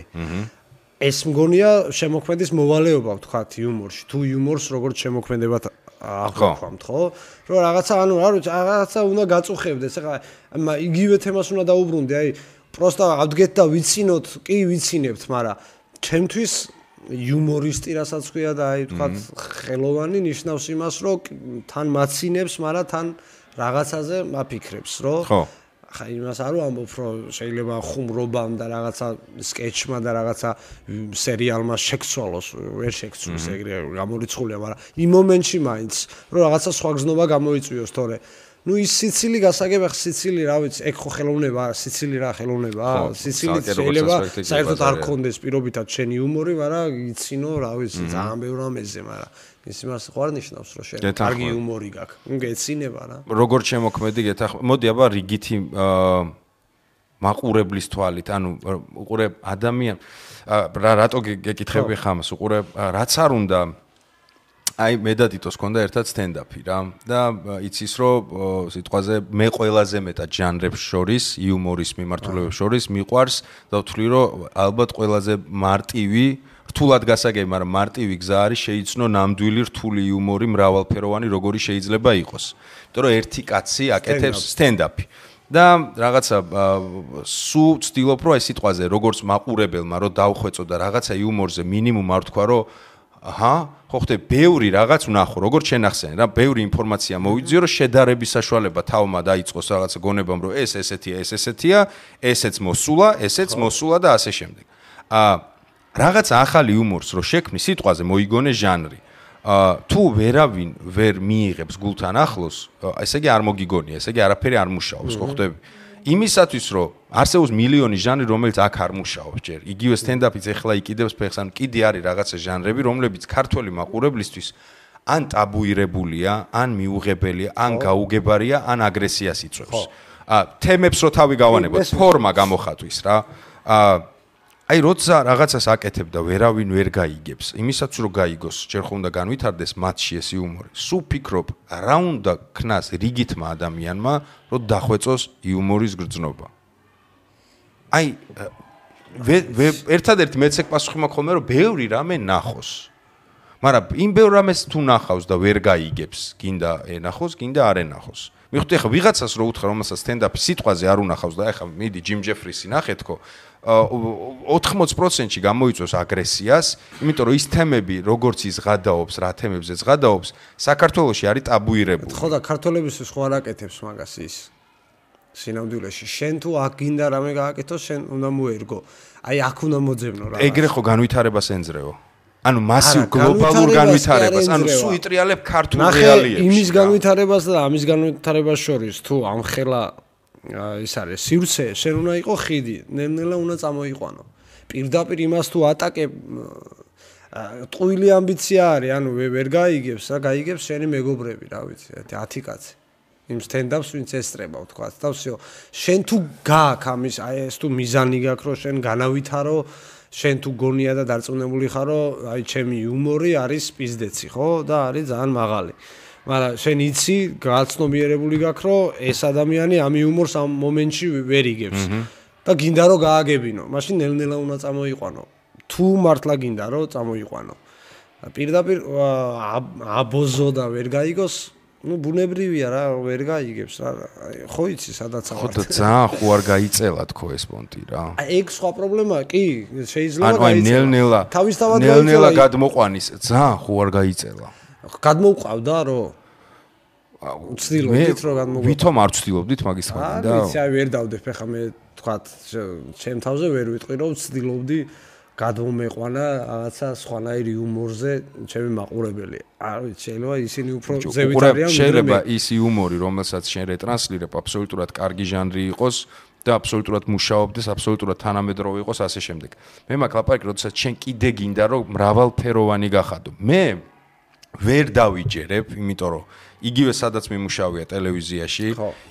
ეს მგონია შემოქმედის მოვალეობა ვთქვათ იუმორში. თუ იუმორს როგორც შემოქმედებად აღვქვამთ, ხო? რომ რაღაცა ანუ რაღაცა უნდა გაწუხებდეს. ახლა იგივე თემას უნდა დაუბრუნდე, აი პროსტა ავდგეთ და ვიცინოთ, კი ვიცინებთ, მაგრამ ჩემთვის იუმორისტი რასაც ქვია და აი ვთქვათ ხელოვანი ნიშნავს იმას, რომ თან მაცინებს, მაგრამ თან რაღაცაზე მაფიქრებს, რომ ხა იმას არ ვამბობ, რომ შეიძლება ხუმრობამ და რაღაცა სკეჩმა და რაღაცა სერიალმა შეცვალოს, ვერ შეცვალოს, ეგრე გამორიცხულია, მაგრამ იმ მომენტში მაინც, რომ რაღაცა სხვა გზნობა გამოიწვიოს, თორე ნუ ის სიცილი გასაგებ, სიცილი რა ვიცი, ეგ ხო ხელოვნება, სიცილი რა ხელოვნება, სიცილი შეიძლება საერთოდ არ გქონდეს პირობითად შენი იუმორი, მაგრამ იცინო, რა ვიცი, ძალიან ბევრ ამაზე, მაგრამ ის იმას ხო არ ნიშნავს, რომ შენ კარგი იუმორი გაქვს. ნუ გეცინება რა. როგორც შემოქმედი გეთანხმები. მოდი აბა რიგითი მაყურებლის თვალით, ანუ უყურე ადამიან რატო გეკითხები ხამას, უყურე რაც არ უნდა აი მე და დიტოს ქონდა ერთად სტენდაპი რა და იცის რომ სიტყვაზე მე ყველაზე მეტად ჟანრებს შორის იუმორის მიმართულებებს შორის მიყვარს და ვთვლი რომ ალბათ ყველაზე მარტივი რთულად გასაგები, მაგრამ მარტივი გზა არის შეიცნო ნამდვილი რთული იუმორი მრავალფეროვანი როგორი შეიძლება იყოს. იმიტომ რომ ერთი კაცი აკეთებს სტენდაპი და რაღაცა სულ ვცდილობ რომ აი სიტყვაზე როგორც მაყურებელმა რომ დავხვეწო და რაღაცა იუმორზე მინიმუმ არ ვთქვა რომ აჰა, ხო ხტე, ბევრი რაღაც ვნახო, როგორც შენახსენე რა, ბევრი ინფორმაცია მოვიძიო, რომ შედარების საშუალება თავმა დაიწყოს რაღაცა გონებამ, რომ ეს ესეთია, ესეც მოსულა, ესეც მოსულა და ასე შემდეგ. რაღაცა ახალი იუმორს რო შექმნი, სიტყვაზე მოიგონე ჟანრი. თუ ვერავინ ვერ მიიღებს გულთან ახლოს, ესე იგი არ მოგიგონია, ესე იგი არაფერი არ მუშაობს, ხო ხტები? იმისათვის რომ არსებობს მილიონი ჟანრი, რომელიც აქ არ მუშაობს ჯერ. იგივე სტენდაპიც ეხლა იყიდებს ფეხს, ან კიდე არის რაღაცა ჟანრები, რომლებიც ქართველი მაყურებლისთვის ან ტაბუირებულია, ან მიუღებელია, ან გაუგებარია, ან აგრესიას იწვევს. თემებს რო თავი გავანებოთ, ფორმა გამოხატვის რა. აი როცა რაღაცას აკეთებ და ვერავინ ვერ გაიგებს, იმისაც რომ გაიგოს, ჯერ ხო უნდა განვითარდეს მათში ეს იუმორი. სულ ფიქრობ, რა უნდა ქნას რიგითმა ადამიანმა, რომ დახვეწოს იუმორის გრძნობა. აი ერთადერთი მეც ეგ პასუხი მაქვს ხოლმე, რომ ბევრი რამე ნახოს. მაგრამ იმ ბევრ რამეს თუ ნახავს და ვერ გაიგებს, გინდა ენახოს, გინდა არ ენახოს. მიხვდი ახლა ვიღაცას რო უთხრა, რომელსაც სტენდაპი სიტყვაზე არ უნახავს და ახლა მიდი ჯიმ ჯეფრისი ნახეთქო, 80%-ში გამოიწვევს აგრესიას, იმიტომ რომ ის თემები, როგორც ის ღადაობს, რა თემებზეც ღადაობს, საქართველოში არის ტაბუირებული. ხო და ქართველებისთვის ხო არ აკეთებს მაგას ის სინამდვილეში. შენ თუ აქ გინდა რამე გააკეთო, შენ უნდა მოერგო. აი აქ უნდა მოძებნო რა. ეგრე ხო განვითარებას ენძრეო. ანუ მასიურ გლობალურ განვითარებას, ანუ სულ იტრიალებ ქართულ რეალიებში. იმის განვითარებას და ამის განვითარებას შორის თუ ამხელა ის არის სივრცე, შენ უნდა იყო ხიდი, ნელ-ნელა უნდა წამოიყვანო. პირდაპირ იმას თუ ატაკებ ტყუილი ამბიცია არის, ანუ ვერ გაიგებს, რა გაიგებს შენი მეგობრები, რა ვიცი, 10 კაცი. იმ სტენდაპს ვინც ესწრება, თქვა, და всё. შენ თუ გააქვს ამის, აი ეს თუ მიზანი გაქვს, რომ შენ განავითარო, შენ თუ გონია და დარწმუნებული ხარ, რომ აი ჩემი იუმორი არის პიზდეცი, ხო? და არის ძალიან მაღალი. მაგრამ შენ იცი, გაცნობიერებული გაქვს, რომ ეს ადამიანი ამ იუმორს ამ მომენტში ვერ იგებს. და გინდა რომ გააგებინო, მაშინ ნელ-ნელა უნდა წამოიყვანო. თუ მართლა გინდა რომ წამოიყვანო. პირდაპირ აბოზო და ვერ გაიგოს, ну ბუნებრივია რა, ვერ გაიგებს რა. ხო იცი, სადაც ხო და ძალიან ხო არ გაიწელა თქო ეს პონტი რა. ეგ სხვა პრობლემა კი, შეიძლება გაიწელა. ანუ ნელ-ნელა. თავისთავად ნელ-ნელა გადმოყვანის, ძალიან ხო არ გაიწელა. გადმოუყავდა რომ ვცდილობდით რომ გადმოგვიყავ. ვითომ არ ვცდილობდით მაგის თქმა და? ვიცი, აი ვერ დავდებ ხა მე თქვათ, ჩემ თავზე ვერ ვიტყვი რომ ვცდილობდი გადმომეყვანა რაღაცა სხვანაირი იუმორზე ჩემი მაყურებელი. არ ვიცი, შეიძლება ისინი უფრო ზევით არიან. შეიძლება ის იუმორი, რომელსაც შენ რეტრანსლირებ, აბსოლუტურად კარგი ჟანრი იყოს და აბსოლუტურად მუშაობდეს, აბსოლუტურად თანამედროვე იყოს ასე შემდეგ. მე მაქვს ლაპარაკი, როდესაც შენ კიდე გინდა რომ მრავალფეროვანი გახადო. მე ვერ დავიჯერებ, იმიტომ რომ იგივე სადაც მიმუშავია ტელევიზიაში,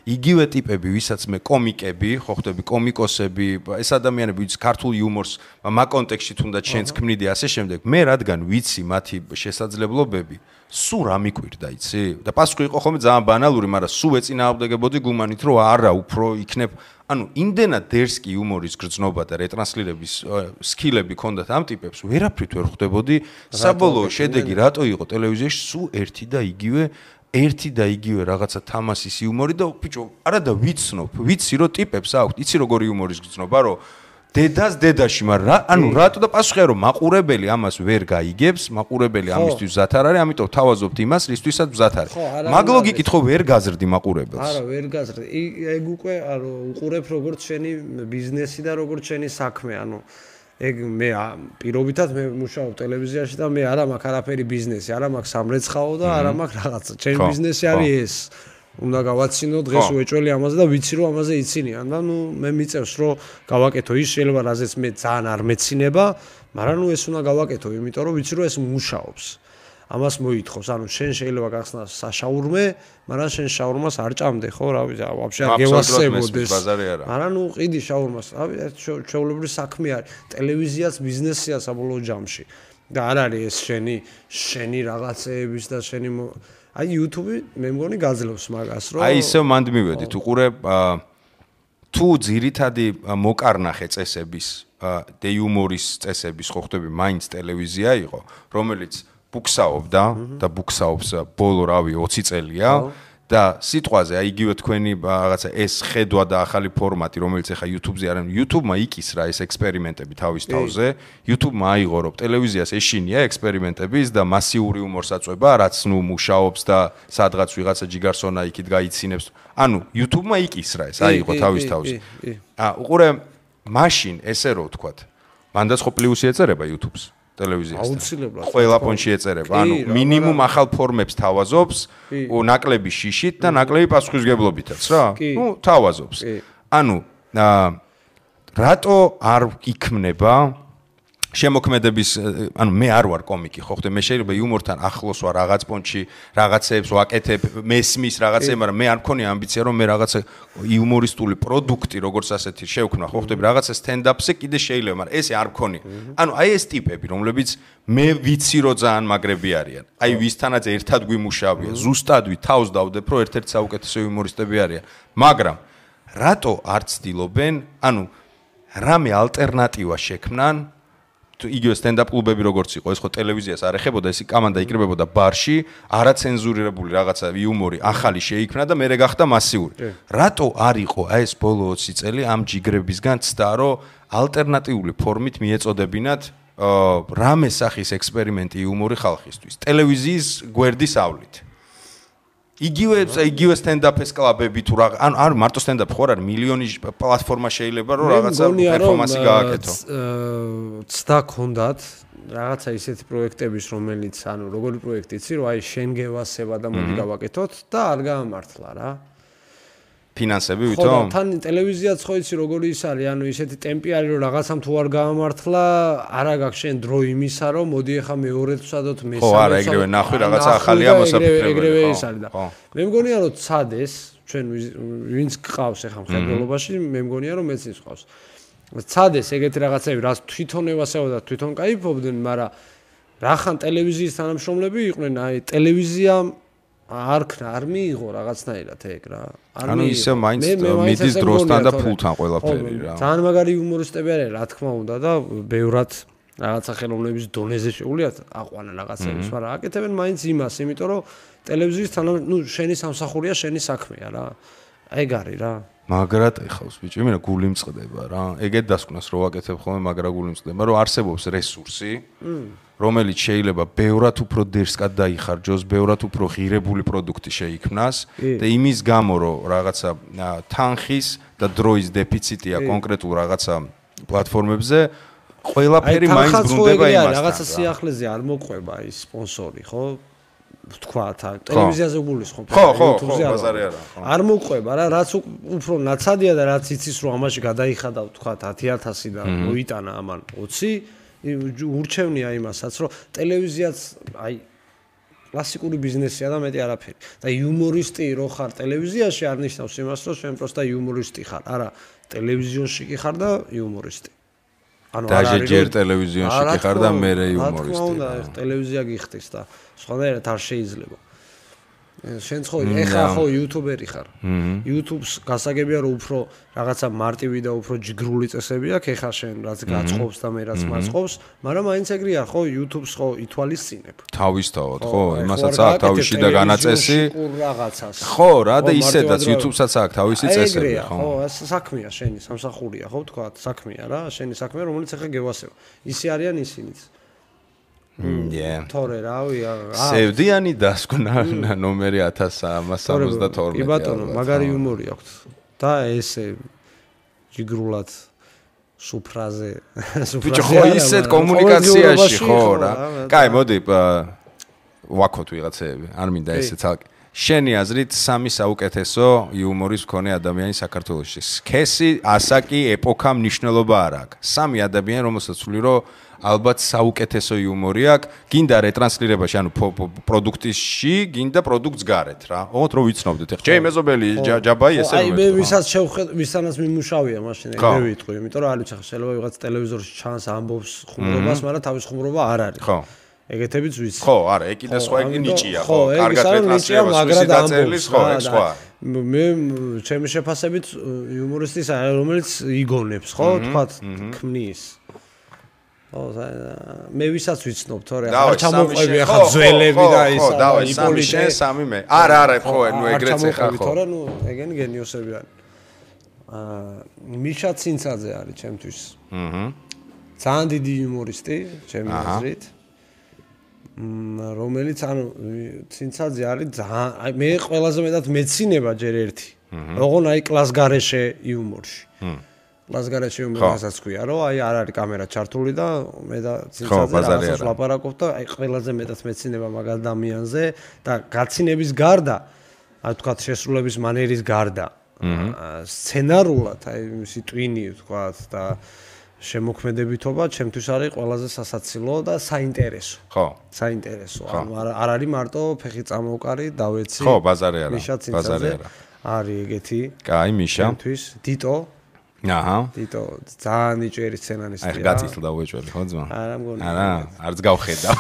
იგივე ტიპები, ვისაც მე კომიკები, ხო ხდები კომიკოსები, ეს ადამიანები, ვინც ქართულ იუმორს მაგ კონტექსტში თუნდაც შენს ქმნიდი ასე შემდეგ, მე რადგან ვიცი მათი შესაძლებლობები, სულ რა მიკვირდა, იცი? და პასუხი იყო ხოლმე ძალიან ბანალური, მაგრამ სულ ეწინააღმდეგებოდი გუმანით, რომ არა, უფრო იქნებ, ანუ იმდენად დერსკი იუმორის გრძნობა და რეტრანსლირების სკილები ქონდათ ამ ტიპებს, ვერაფრით ვერ ხვდებოდი, საბოლოო შედეგი რატო იყო ტელევიზიაში სულ ერთი და იგივე რაღაცა თამასის იუმორი და ბიჭო, არა და ვიცნობ, ვიცი რომ ტიპებს აქვთ, იცი როგორი იუმორის გრძნობა, რომ დედას დედაში, მაგრამ ანუ რატო და პასუხია რომ მაყურებელი ამას ვერ გაიგებს, მაყურებელი ამისთვის მზად არ არის, ამიტომ თავაზობთ იმას, რისთვისაც მზად არის. მაგ ლოგიკით ხო ვერ გაზრდი მაყურებელს. არა, ვერ გაზრდი. ეგ უკვე უყურებ როგორც შენი ბიზნესი და როგორც შენი საქმე, ანუ ეგ მე პირობითად მე მუშაობ ტელევიზიაში და მე არა მაქვს არაფერი ბიზნესი, არა მაქვს სამრეცხაო და არა მაქვს რაღაცა. ჩემი ბიზნესი არის ეს. უნდა გავაცინო დღეს უეჭველი ამაზე და ვიცი რომ ამაზე იცინიან და ნუ მე მიწევს რომ გავაკეთო ის შეიძლება რაზეც მე ძალიან არ მეცინება, მაგრამ ნუ ეს უნდა გავაკეთო, იმიტომ რომ ვიცი რომ ეს მუშაობს. ამას მოითხოვს, ანუ შენ შეიძლება გახსნას საშაურმე, მაგრამ შენ შაურმას არ ჭამდე, ხო, რა ვიცი, ვაფშე არ გევასებოდეს. მაგრამ ნუ ყიდი შაურმას, რავი, ჩვეულებრივი საქმე არის, ტელევიზიაც ბიზნესია საბოლოო ჯამში. და არ არის ეს შენი რაღაცეების და შენი აი YouTube მე მგონი გაძლევს მაგას, რომ აი ისევ მანდ მივედით, უყურებ თუ ძირითადი მოკარნახე წესების და იუმორის წესების ხო ხდები, მაინც ტელევიზია იყო, რომელიც ბუქსაობდა და ბუქსაობს ბოლო რავი 20 წელია და სიტყვაზე აი იგივე თქვენი რაღაცა ეს ხედვა და ახალი ფორმატი, რომელიც ახლა YouTube-ზე არის, YouTube-მა იკისრა ეს ექსპერიმენტები თავის თავზე, YouTube-მა აიღო რომ ტელევიზიას ეშინია ექსპერიმენტების და მასიური იუმორს აწვება, რაც ნუ მუშაობს და სადღაც ვიღაცა ჯიგარსონა იქით გაიცინებს. ანუ YouTube-მა იკისრა ეს, აიღო თავის თავზე. უყურე, მაშინ ესე რო ვთქვათ, მანდაც ხო პლუსი ეწერება YouTube-ს. ტელევიზიასთან. აუცილებლად. ყველა ფონში ეწერება. ანუ მინიმუმ ახალ ფორმებს თავაზობს, ნაკლები შიშით და ნაკლები პასუხისგებლობითაც რა. ნუ თავაზობს. ანუ რატო არ იქმნება შემოქმედების, ანუ მე არ ვარ კომიკი, ხო ხდე, მე შეიძლება იუმორთან ახლოს ვარ რაღაც პონჩი, რაღაცებს ვაკეთებ, მესმის რაღაცე, მაგრამ მე არ მქონია ამბიცია რომ მე რაღაცა იუმორისტული პროდუქტი, როგორც ასეთი შევქმნა, ხო ხდები, რაღაცა სტენდაპზე კიდე შეიძლება, მაგრამ ესე არ მქონია. ანუ აი ეს ტიპები, რომლებიც მე ვიცი რომ ძალიან მაგრები არიან. აი ვისთანაც ერთად გვიმუშავია, ზუსტად თავს დავდებ, რომ ერთ-ერთი საუკეთესო იუმორისტები არიან. მაგრამ რატო არ ცდილობენ, ანუ რამე ალტერნატივა შექმნან იგივე სტენდაპ კლუბები როგორც იყო, ეს ხო ტელევიზიას არ ეხებოდა, ეს კომანდა იკრებოდა ბარში, არაცენზურირებული რაღაცა იუმორი ახალი შეიქმნა და მერე გახდა მასიური. რატო არ იყო აი ეს ბოლო 20 წელი ამ ჯიგრებისგან ცდა, რომ ალტერნატიული ფორმით მიეწოდებინათ რამე სახის ექსპერიმენტი იუმორი ხალხისთვის. ტელევიზიის გვერდის ავლით. იგივე სტენდაპის კლუბები თუ რა, ანუ არ მარტო სტენდაპი ხო არ არის, მილიონი პლატფორმა შეიძლება რომ რაღაცა პერფორმანსი გააკეთო. ცდა ქონდათ რაღაცა ისეთი პროექტების, რომელიც ანუ როგორი პროექტი იცი, რომ აი შენ გევასება და მოდი გავაკეთოთ და არ გაამართლა რა. ფინანსები ხო, ვითომ? თან ტელევიზიაც ხო იცი როგორი ის არის, ანუ ისეთი ტემპი არის, რომ რაღაცამ თუ არ გაამართლა, არა გაქვს შენ დრო იმისა, რომ მოდი ახლა მეორედ ვსადოთ, მესამე. ხო, არა, ეგრევე ნახვი რაღაცა ახალია მოსაფიქრებელი. ეგრევე ის არის და მე მგონია რომ ცადეს, ჩვენ ვინც გყავს ახლა მხედველობაში, მე მგონია რომ მეც ის გყავს. ცადეს ეგეთი რაღაცები, რაც თვითონ ევასება და თვითონ кайფობდნენ, მაგრამ რახან ტელევიზიის თანამშრომლები იყვნენ, აი ტელევიზიამ არ მიიღო რაღაცნაირად ეგ რა. ანუ ისე მაინც მიდის დროსთან და ფულთან ყველაფერი რა. ძალიან მაგარი იუმორისტები არის, რა თქმა უნდა და ბევრად რაღაცა ხელოვნების დონეზე შეუძლიათ აყვანა რაღაცებს, მაგრამ აკეთებენ მაინც იმას, იმიტომ რომ ტელევიზიის შენი სამსახურია, შენი საქმეა რა. ეგ არის რა. მაგრად ეხავს ბიჭო, იმენა გული მწყდება რა. ეგეთ დასკვნას რო ვაკეთებ ხოლმე, მაგრა გული მწყდება, რომ არსებობს რესურსი, რომელიც შეიძლება ბევრად უფრო დერსკად დაიხარჯოს, ბევრად უფრო ღირებული პროდუქტი შეიქმნას და იმის გამო რომ რაღაცა თანხის და დროის დეფიციტია კონკრეტულ რაღაცა პლატფორმებზე, ყველაფერი მაინც ბრუნდება იმასთან. რაღაცა სიახლეზე არ მოყვება ის სპონსორი, ხო? თქვათ, ტელევიზიაზე გულის ხო? ხო, ბაზარი არა. არ მოყვება რა, რაც უფრო ნაცადია და რაც იცის რომ ამაში გადაიხადავ თქვათ 10,000 და მოიტანა ამან 20 ურჩევნია იმასაც, რომ ტელევიზიაც აი კლასიკური ბიზნესია და მეტი არაფერი. და იუმორისტი რო ხარ ტელევიზიაში არ ნიშნავს იმას, რომ შენ პროსტა იუმორისტი ხარ. არა, ტელევიზიონში კი ხარ და იუმორისტი. ანუ არ არის ჯერ ტელევიზიონში კი ხარ და მერე იუმორისტი. რა თქმა უნდა, ტელევიზია გიხდის და სხვადასხვა არ შეიძლება. შენ ხო ეხა ხო იუთუბერი ხარ. YouTube-ს გასაგებია რომ უფრო რაღაცა მარტივი და უფრო ჯგრული წესები აქვს, ეხა შენ რაც გაწყობს და მე რაც მაწყობს, მაგრამ მაინც ეგრეა ხო YouTube-ს ხო ითვალისწინებ. თავისთავად ხო, იმასაც აქვს თავისი და განაწესი. ხო, რა და ისედაც YouTube-საც აქვს თავისი წესები, ხო. ხო, ეს საქმეა შენი, სამსახურია, ხო თქვა, საქმეა რა, შენი საქმეა, რომელიც ეხა გევასება. ისე არიან ისინიც. თორე რავია სევდიანი დასკვნა ნომერი 1372. კი ბატონო, მაგარი იუმორი აქვს და ესე ჯიგრულად სუფრაზე ბიჭო ხო ისეთ კომუნიკაციაში ხო რა. კაი, მოდი ვაქოთ ვიღაცები, არ მინდა ესე ცალკე. შენი აზრით სამი საუკეთესო იუმორის მქონე ადამიანი საქართველოში. სქესი, ასაკი, ეპოქა მნიშვნელობა არ აქვს. სამი ადამიანი, რომელსაც ვთვლი რომ ალბათ საუკეთესო იუმორი აქვს, გინდა რეტრანსლირებაში, ანუ პროდუქტში, გინდა პროდუქტს გარეთ რა. ოღონდ რომ ვიცნობდეთ. ეხლა ჩემი მეზობელი ჯაბაი ესე რომ აი მე ვისაც ვისთანაც მიმუშავია მაშინ ეგრე ვიტყვი, იმიტომ რომ არის ახლა შეიძლება ვიღაც ტელევიზორში ჩანს ამბობს ხუმრობას, მაგრამ თავის ხუმრობა არ არის. ხო. ეგეთებიც ვიცი. ხო, არა, ეგ კიდე სხვა იგი ნიჭია, ხო, კარგად რეტრანსლირებას ვისი დაწერლის, ხო, ეგ სხვა. მე ჩემი შეფასებით იუმორისტის რომელიც იგონებს, ხო, თქვა ქმნის. ხო, მე ვისაც ვიცნობ, თორე არ ჩამოყვები ახლა ძველები და ის იპოლიტე შენ სამი მე. არა, ხო, ნუ ეგრეც ეხა ხო. თორე ნუ ეგენი გენიოსები არის. მიშა ცინცაძე არის ჩემთვის. ძალიან დიდი იუმორისტი, ჩემი აზრით. რომელიც ანუ ცინცაძე არის ძალიან მე ყველაზე მეტად მეცინება ჯერ ერთი. ოღონ აი კლასგარეშე იუმორში. კლასგარეშე იუმორსაც ქვია, რომ აი არ არის კამერა ჩართული და მე და ცინცაძე რაღაცას ვლაპარაკობ და აი ყველაზე მეტად მეცინება მაგ ადამიანზე და გაცინების გარდა, აი თქვა შესრულების მანერის გარდა, სცენარულად აი მისი ტვინი თქვა და შემოქმედებითობა ჩემთვის არის ყველაზე სასაცილო და საინტერესო. ხო. საინტერესო. ანუ არ არის მარტო ფეხი წამოვკარი, დავეცი. ხო, ბაზარი არა. ბაზარი არა. არის ეგეთი. კაი, მიშა. ჩემთვის დიტო. აჰა. დიტო ძალიან იჭერი სცენარისტია. აი, გაწითლდა უეჭველი, ხო ძმა? არა, მგონი. არა, არც გავხედავ.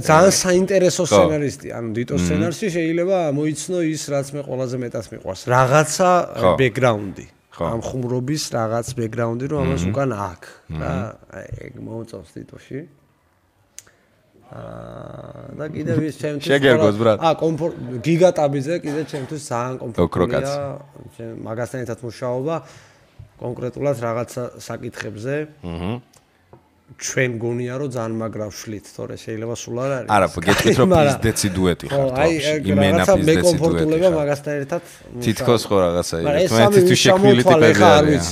ძალიან საინტერესო სცენარისტია. ანუ დიტო სცენარში შეიძლება მოიცნო ის, რაც მე ყველაზე მეტად მიყვარს. რაღაცა ბექგრაუნდი. ამ ხუმრობის რაღაც ბექგრაუნდი რომ ამას უკან აქვს რა ეგ მოუწევს თითოში და კიდევ ის ჩემთვის შეგერგოს ბრატ გიგატაბიზე კიდე ჩემთვის ძალიან კომფორტულია მაგასთან ერთად მუშაობა კონკრეტულად რაღაცა საკითხებზე ჩვენ გონია რომ ძალიან მაგრა ვშლით, თორე შეიძლება სულ არ არის. არა, გეტყვით რომ პიზდეცი დუეტი ხართ ბავშვი. იმენა პიზდეცი დუეტი. მე კომფორტულება მაგასთან ერთად. თითქოს ხო რაღაცა იყო. ერთმანეთის შექმნილი ტიპები არის.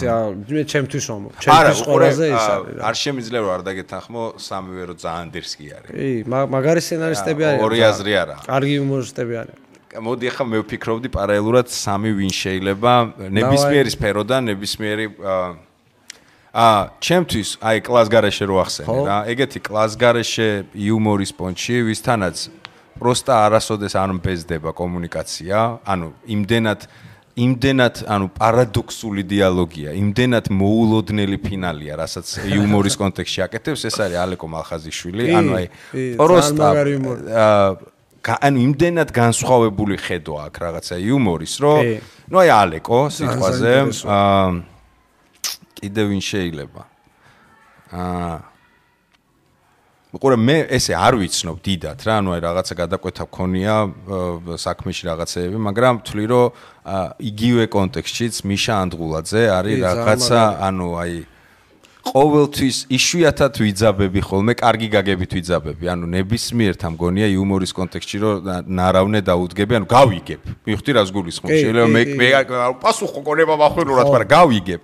მე ჩემთვის ვამბობ. ჩემთვის ყველაზე ის არის. არ შემიძლია რომ არ დაგეთანხმო სამივე რომ ძალიან დერსკი არის. კი, მაგარი სცენარისტები არიან. ორი აზრი არა. კარგი იუმორისტები არიან. მოდი ახლა მე ვფიქრობდი პარალელურად სამი ვინ შეიძლება ნებისმიერი სფეროდან ნებისმიერი ჩემთვის აი კლასგარეშე რო ახსენე რა ეგეთი კლასგარეშე იუმორის პონჩი ვისთანაც პროსტა არასოდეს არ მბეზდება კომუნიკაცია ანუ იმდენად ანუ პარადოქსული დიალოგია იმდენად მოულოდნელი ფინალია რასაც იუმორის კონტექსტში აკეთებს ეს არის ალეკო მალხაზიშვილი ანუ აი პროსტა ანუ იმდენად განსხვავებული ხედვა აქვს რაღაცა იუმორის რომ ნუ აი ალეკო სიტყვაზე კიდე ვინ შეიძლება უყურე მე ესე არ ვიცნობ დიდად რა ანუ აი რაღაცა გადაკვეთა მქონია საქმეში რაღაცეები მაგრამ ვთვლი რომ იგივე კონტექსტშიც მიშა ანდღულაძე არის რაღაცა ანუ აი ყოველთვის იშვიათად ვიძაბები ხოლმე კარგი გაგებით ვიძაბები ანუ ნებისმიერთა მგონია იუმორის კონტექსტში რომ ნარავნე დაუდგები ანუ გავიგებ მივხვდი რას გულისხმობ შეიძლება მე პასუხო კონება მახვილურად მაგრამ გავიგებ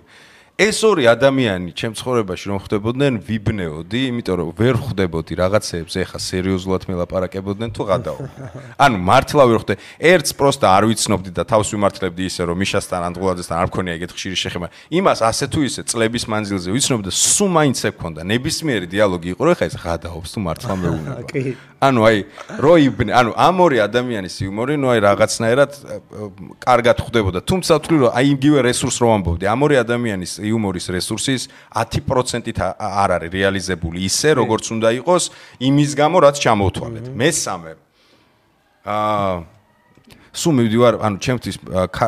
ეს ორი ადამიანი ჩემ ცხოვრებაში რომ ხვდებოდნენ ვიბნეოდი, იმიტომ რომ ვერ ხვდებოდი რაღაცეებს ეხა სერიოზულად მელაპარაკებოდნენ თუ გადაობდნენ. ანუ მართლა ვერ ხვდე. ერთს პროსტა არ ვიცნობდი და თავს ვიმართლებდი ისე რომ მიშასთან ანდღულაძესთან არ მქონია ეგეთ ხშირი შეხება. იმას ასე თუ ისე წლების მანძილზე ვიცნობდი და სულ მაინც ექონდა ნებისმიერი დიალოგი იყო რომ ეხა ეს გადაობს თუ მართლა მეუნება. ანუ აი როიბნე, ანუ ამ ორი ადამიანის იუმორი, ნუ აი რაღაცნაირად კარგად ხვდებოდა. თუმცა ვთვლი რომ აი იგივე რესურს რომ ამბობდი, ამ ორი ადამიანის იუმორის რესურსის 10%-ით არ არის რეალიზებული ისე, როგორც უნდა იყოს, იმის გამო რაც ჩამოვთვალეთ. მესამე სულ მივდივარ, ანუ ჩემთვის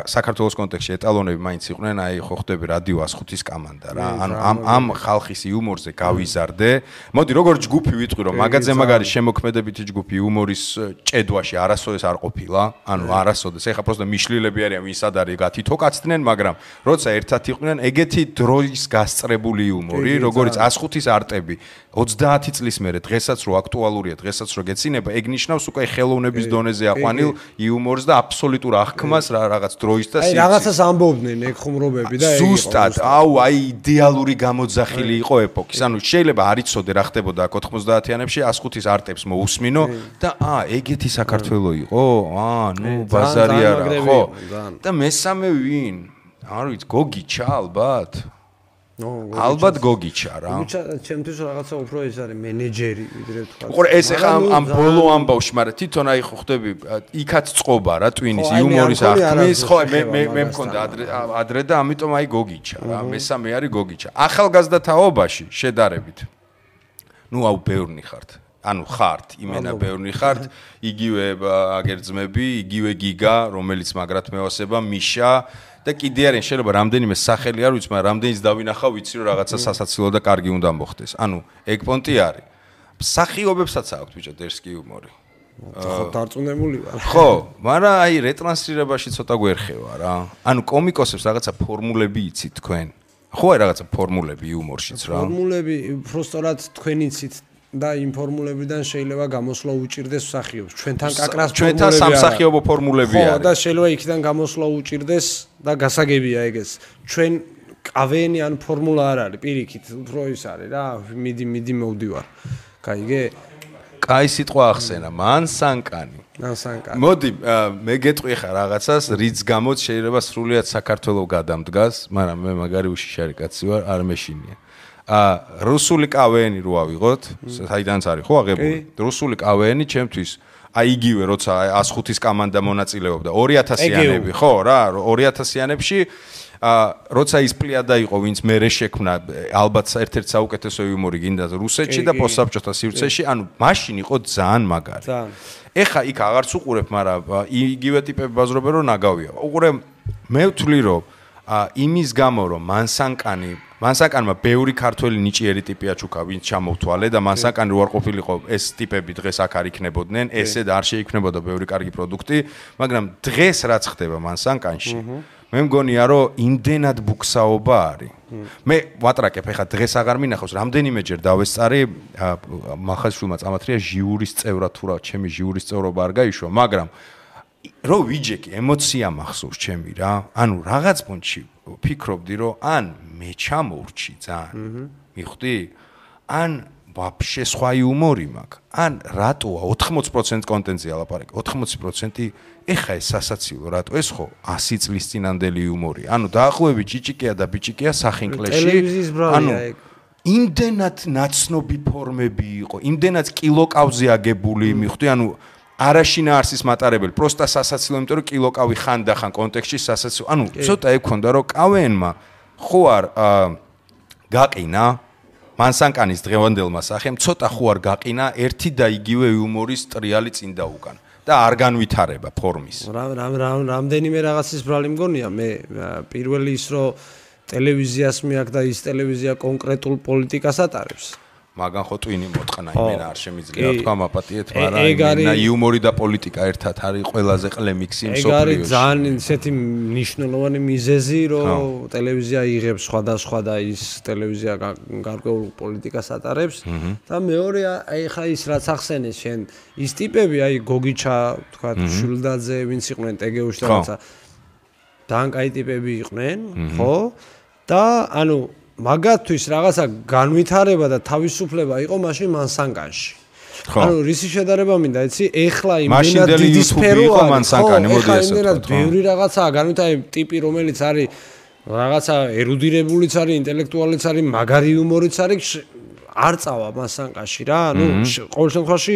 საქართველოს კონტექსტში ეტალონები მაინც იყვნენ, აი ხო ხვდები რადიო 105-ის კამანდა რა. ანუ ამ ხალხის იუმორზე გავიზარდე. მოდი როგორ ჯგუფი ვიტყვი რომ მაგაზე მაგარი შემოქმედებითი ჯგუფი იუმორის ჭედვაში არასოდეს არ ყოფილა. ანუ არასოდეს. ეხლა პროსტა მიშლილები არიან, ვინც არის გათითო კაცდნენ, მაგრამ როცა ერთად იყვნენ, ეგეთი დროის გასწრებული იუმორი, როგორც 105-ის არტები 30 წლის მერე დღესაც რო აქტუალურია, დღესაც რო გეცინება, ეგ ნიშნავს უკვე ხელოვნების დონეზე აყვანილ იუმორს და აბსოლუტურ აღქმას რაღაც დროის და სიცხეს. აი რაღაცას ამბობდნენ ეგ ხუმრობები და ეგ ზუსტად, აუ აი იდეალური გამოძახილი იყო ეპოქის. ანუ შეიძლება არ იცოდე რა ხდებოდა 90-იანებში 105-ის არტებს მოусმინო და ეგეთი საქართველო იყო? ნუ ბაზარი არა, ხო? და მესამე ვინ? არ ვიცი, გოგიჩა ალბათ. ალბათ გოგიჩა რა. ჩემთვის რაღაცა უფრო ეს არის მენეჯერი ვიდრე თქვა. უყურე ეს ახლა ამ ბოლო ამბავში, მაგრამ თვითონ აი ხო ხდები იქაც წყობა რა ტვინის იუმორის აღქმის, ხო მე მქონდა ადრე და ამიტომ აი გოგიჩა რა. მესამე არის გოგიჩა. ახალგაზრდათაობაში შედარებით. ნუ აუ ბევრნი ხართ. ანუ ხართ, იმენა ბევრნი ხართ, იგივე აგერძმები, იგივე გიგა, რომელიც მაგრად მეოსება, მიშა და კიდე არიან შეიძლება რამდენიმე სახელი არ ვიცი, მაგრამ რამდენიც დავინახავ, ვიცი რომ რაღაცა სასაცილო და კარგი უნდა მოხდეს. ანუ ეგ პონტი არის. მსახიობებსაც აქვს ბიჭო დერსკი იუმორი. ხო, დარწმუნებული ვარ. ხო, მაგრამ აი რეტრანსლირებაში ცოტა გვერხევა რა. ანუ კომიკოსებს რაღაცა ფორმულები იცით თქვენ. ხო, აი რაღაცა ფორმულები იუმორშიც რა. ფორმულები უბრალოდ თქვენი იცით და იმ ფორმულებიდან შეიძლება გამოსვლა უჭირდეს მსახიობს. ჩვენთან კაკრას ფორმულები ჩვენთან სამსახიობო ფორმულები არის. ხო, და შეიძლება იქიდან გამოსვლა უჭირდეს და გასაგებია ეგეც. ჩვენ კავენი ან ფორმულა არ არის, პირიქით, უფრო ის არის რა, მიდი მოვდივარ. გაიგე? კაი სიტყვა ახსენა, მანსანკანი. მანსანკანი. მოდი, მე გეტყვი ხა რაღაცას, რის გამოც შეიძლება სრულიად საქართველოს გადამდგას, მაგრამ მე მაგარი უშიშარი კაცი ვარ, არ მეშინია. რუსული კავენი რო ავიღოთ, საიდანაც არის ხო აღებული? რუსული კავენი ჩემთვის აი იგივე როცა 105-ის კამანდა მონაწილეობდა 2000-იანები, ხო რა, 2000-იანებში როცა ის პლიადა იყო, ვინც მერე შექმნა, ალბათ ერთ-ერთი საუკეთესო იუმორი გინდა რუსეთში და პოსტსაბჭოთა სივრცეში, ანუ მაშინ იყო ძალიან მაგარი. ეხა იქ აღარც უყურებ, მაგრამ იგივე ტიპები ბაზრობენ რომ ნაგავია. უყურე, მე ვთვლი რომ იმის გამო რომ მანსანკანმა ბევრი ქართველი ნიჭიერი ტიპია ჩუქა, ვინც ჩამოვთვალე და მანსანკანი რო არ ყოფილიყო ეს ტიპები დღეს აქ არ იქნებოდნენ, ესე და არ შეიქმნებოდა ბევრი კარგი პროდუქტი, მაგრამ დღეს რაც ხდება მანსანკანში, მე მგონია რომ იმდენად ბუქსაობა არის. მე ვატრაკებ ეხლა დღეს აღარ მინახავს რამდენიმეჯერ დავესწარი მახასშვილმა წამათრია ჟიურის წევრად თუ რა ჩემი ჟიურის წევრობა არ გაიშვა მაგრამ რო ვიჯეკი ემოცია მახსოვს ჩემი რა ანუ რაღაც პონჩი ფიქრობდი რომ ან მე ჩამოვრჩი ძალიან მიხვდი ან ვაფშე სხვა იუმორი მაქვს ან რატოა 80% კონტენტზე ალაპარაკი 80% ეხა ეს სასაცილო რატო ეს ხო 100 წლის წინანდელი იუმორი ანუ დაახლოებით ჭიჭიკია და ბიჭიკია სახინკლეში ანუ იმდენად ნაცნობი ფორმები იყო იმდენად კილოკავზე აგებული მიხვდი ანუ არაშინა არსის მატარებელი პროსტა სასაცილო იმიტომ რომ კილოკავი ხან კონტექსტში სასაცილო ანუ ცოტა ექონდა რომ კავენმა ხო არ გაყინა მანსანკანის დღევანდელმა სახემ ცოტა ხო არ გაყინა ერთი და იგივე იუმორის ტრიალი წინ და უკან და არ განვითარება ფორმის. რამდენიმე რაღაცის ბრალი მგონია მე პირველი ის რომ ტელევიზიას მიაქვს და ის ტელევიზია კონკრეტულ პოლიტიკას ატარებს. მაგან ხო ტვინი მოტყნა იმენა არ შემიძლია თქვა მაპატიეთ მაგრამ იმენა იუმორი და პოლიტიკა ერთად არის ყველაზე ყლემიქსი მსოფლიოში. ეგ არის ძალიან ისეთი მნიშვნელოვანი მიზეზი რომ ტელევიზია იღებს სხვადასხვა და ის ტელევიზია გარკვეულ პოლიტიკას ატარებს და მეორე აი ხა ის რაც ახსენეს შენ ის ტიპები აი გოგიჩა თქვა შულდაძე ვინც იყვნენ ტეგეუში და რაცა ძალიან კაი ტიპები იყვნენ ხო და ანუ მაგათთვის რაღაცა განვითარება და თავისუფლება იყო მაშინ მანსანკანში. ანუ რისი შედარება მინდა, იცი? ეხლა იმენად დიდი სფერო იყო მანსანკანი, მოდი ესე ვთქვა. ბევრი რაღაცაა განვითარება ტიპი, რომელიც არის რაღაცა ერუდირებულიც არის, ინტელექტუალიც არის, მაგარი იუმორიც არის, არ წავა მანსანკანში რა. ანუ ყოველ შემთხვევაში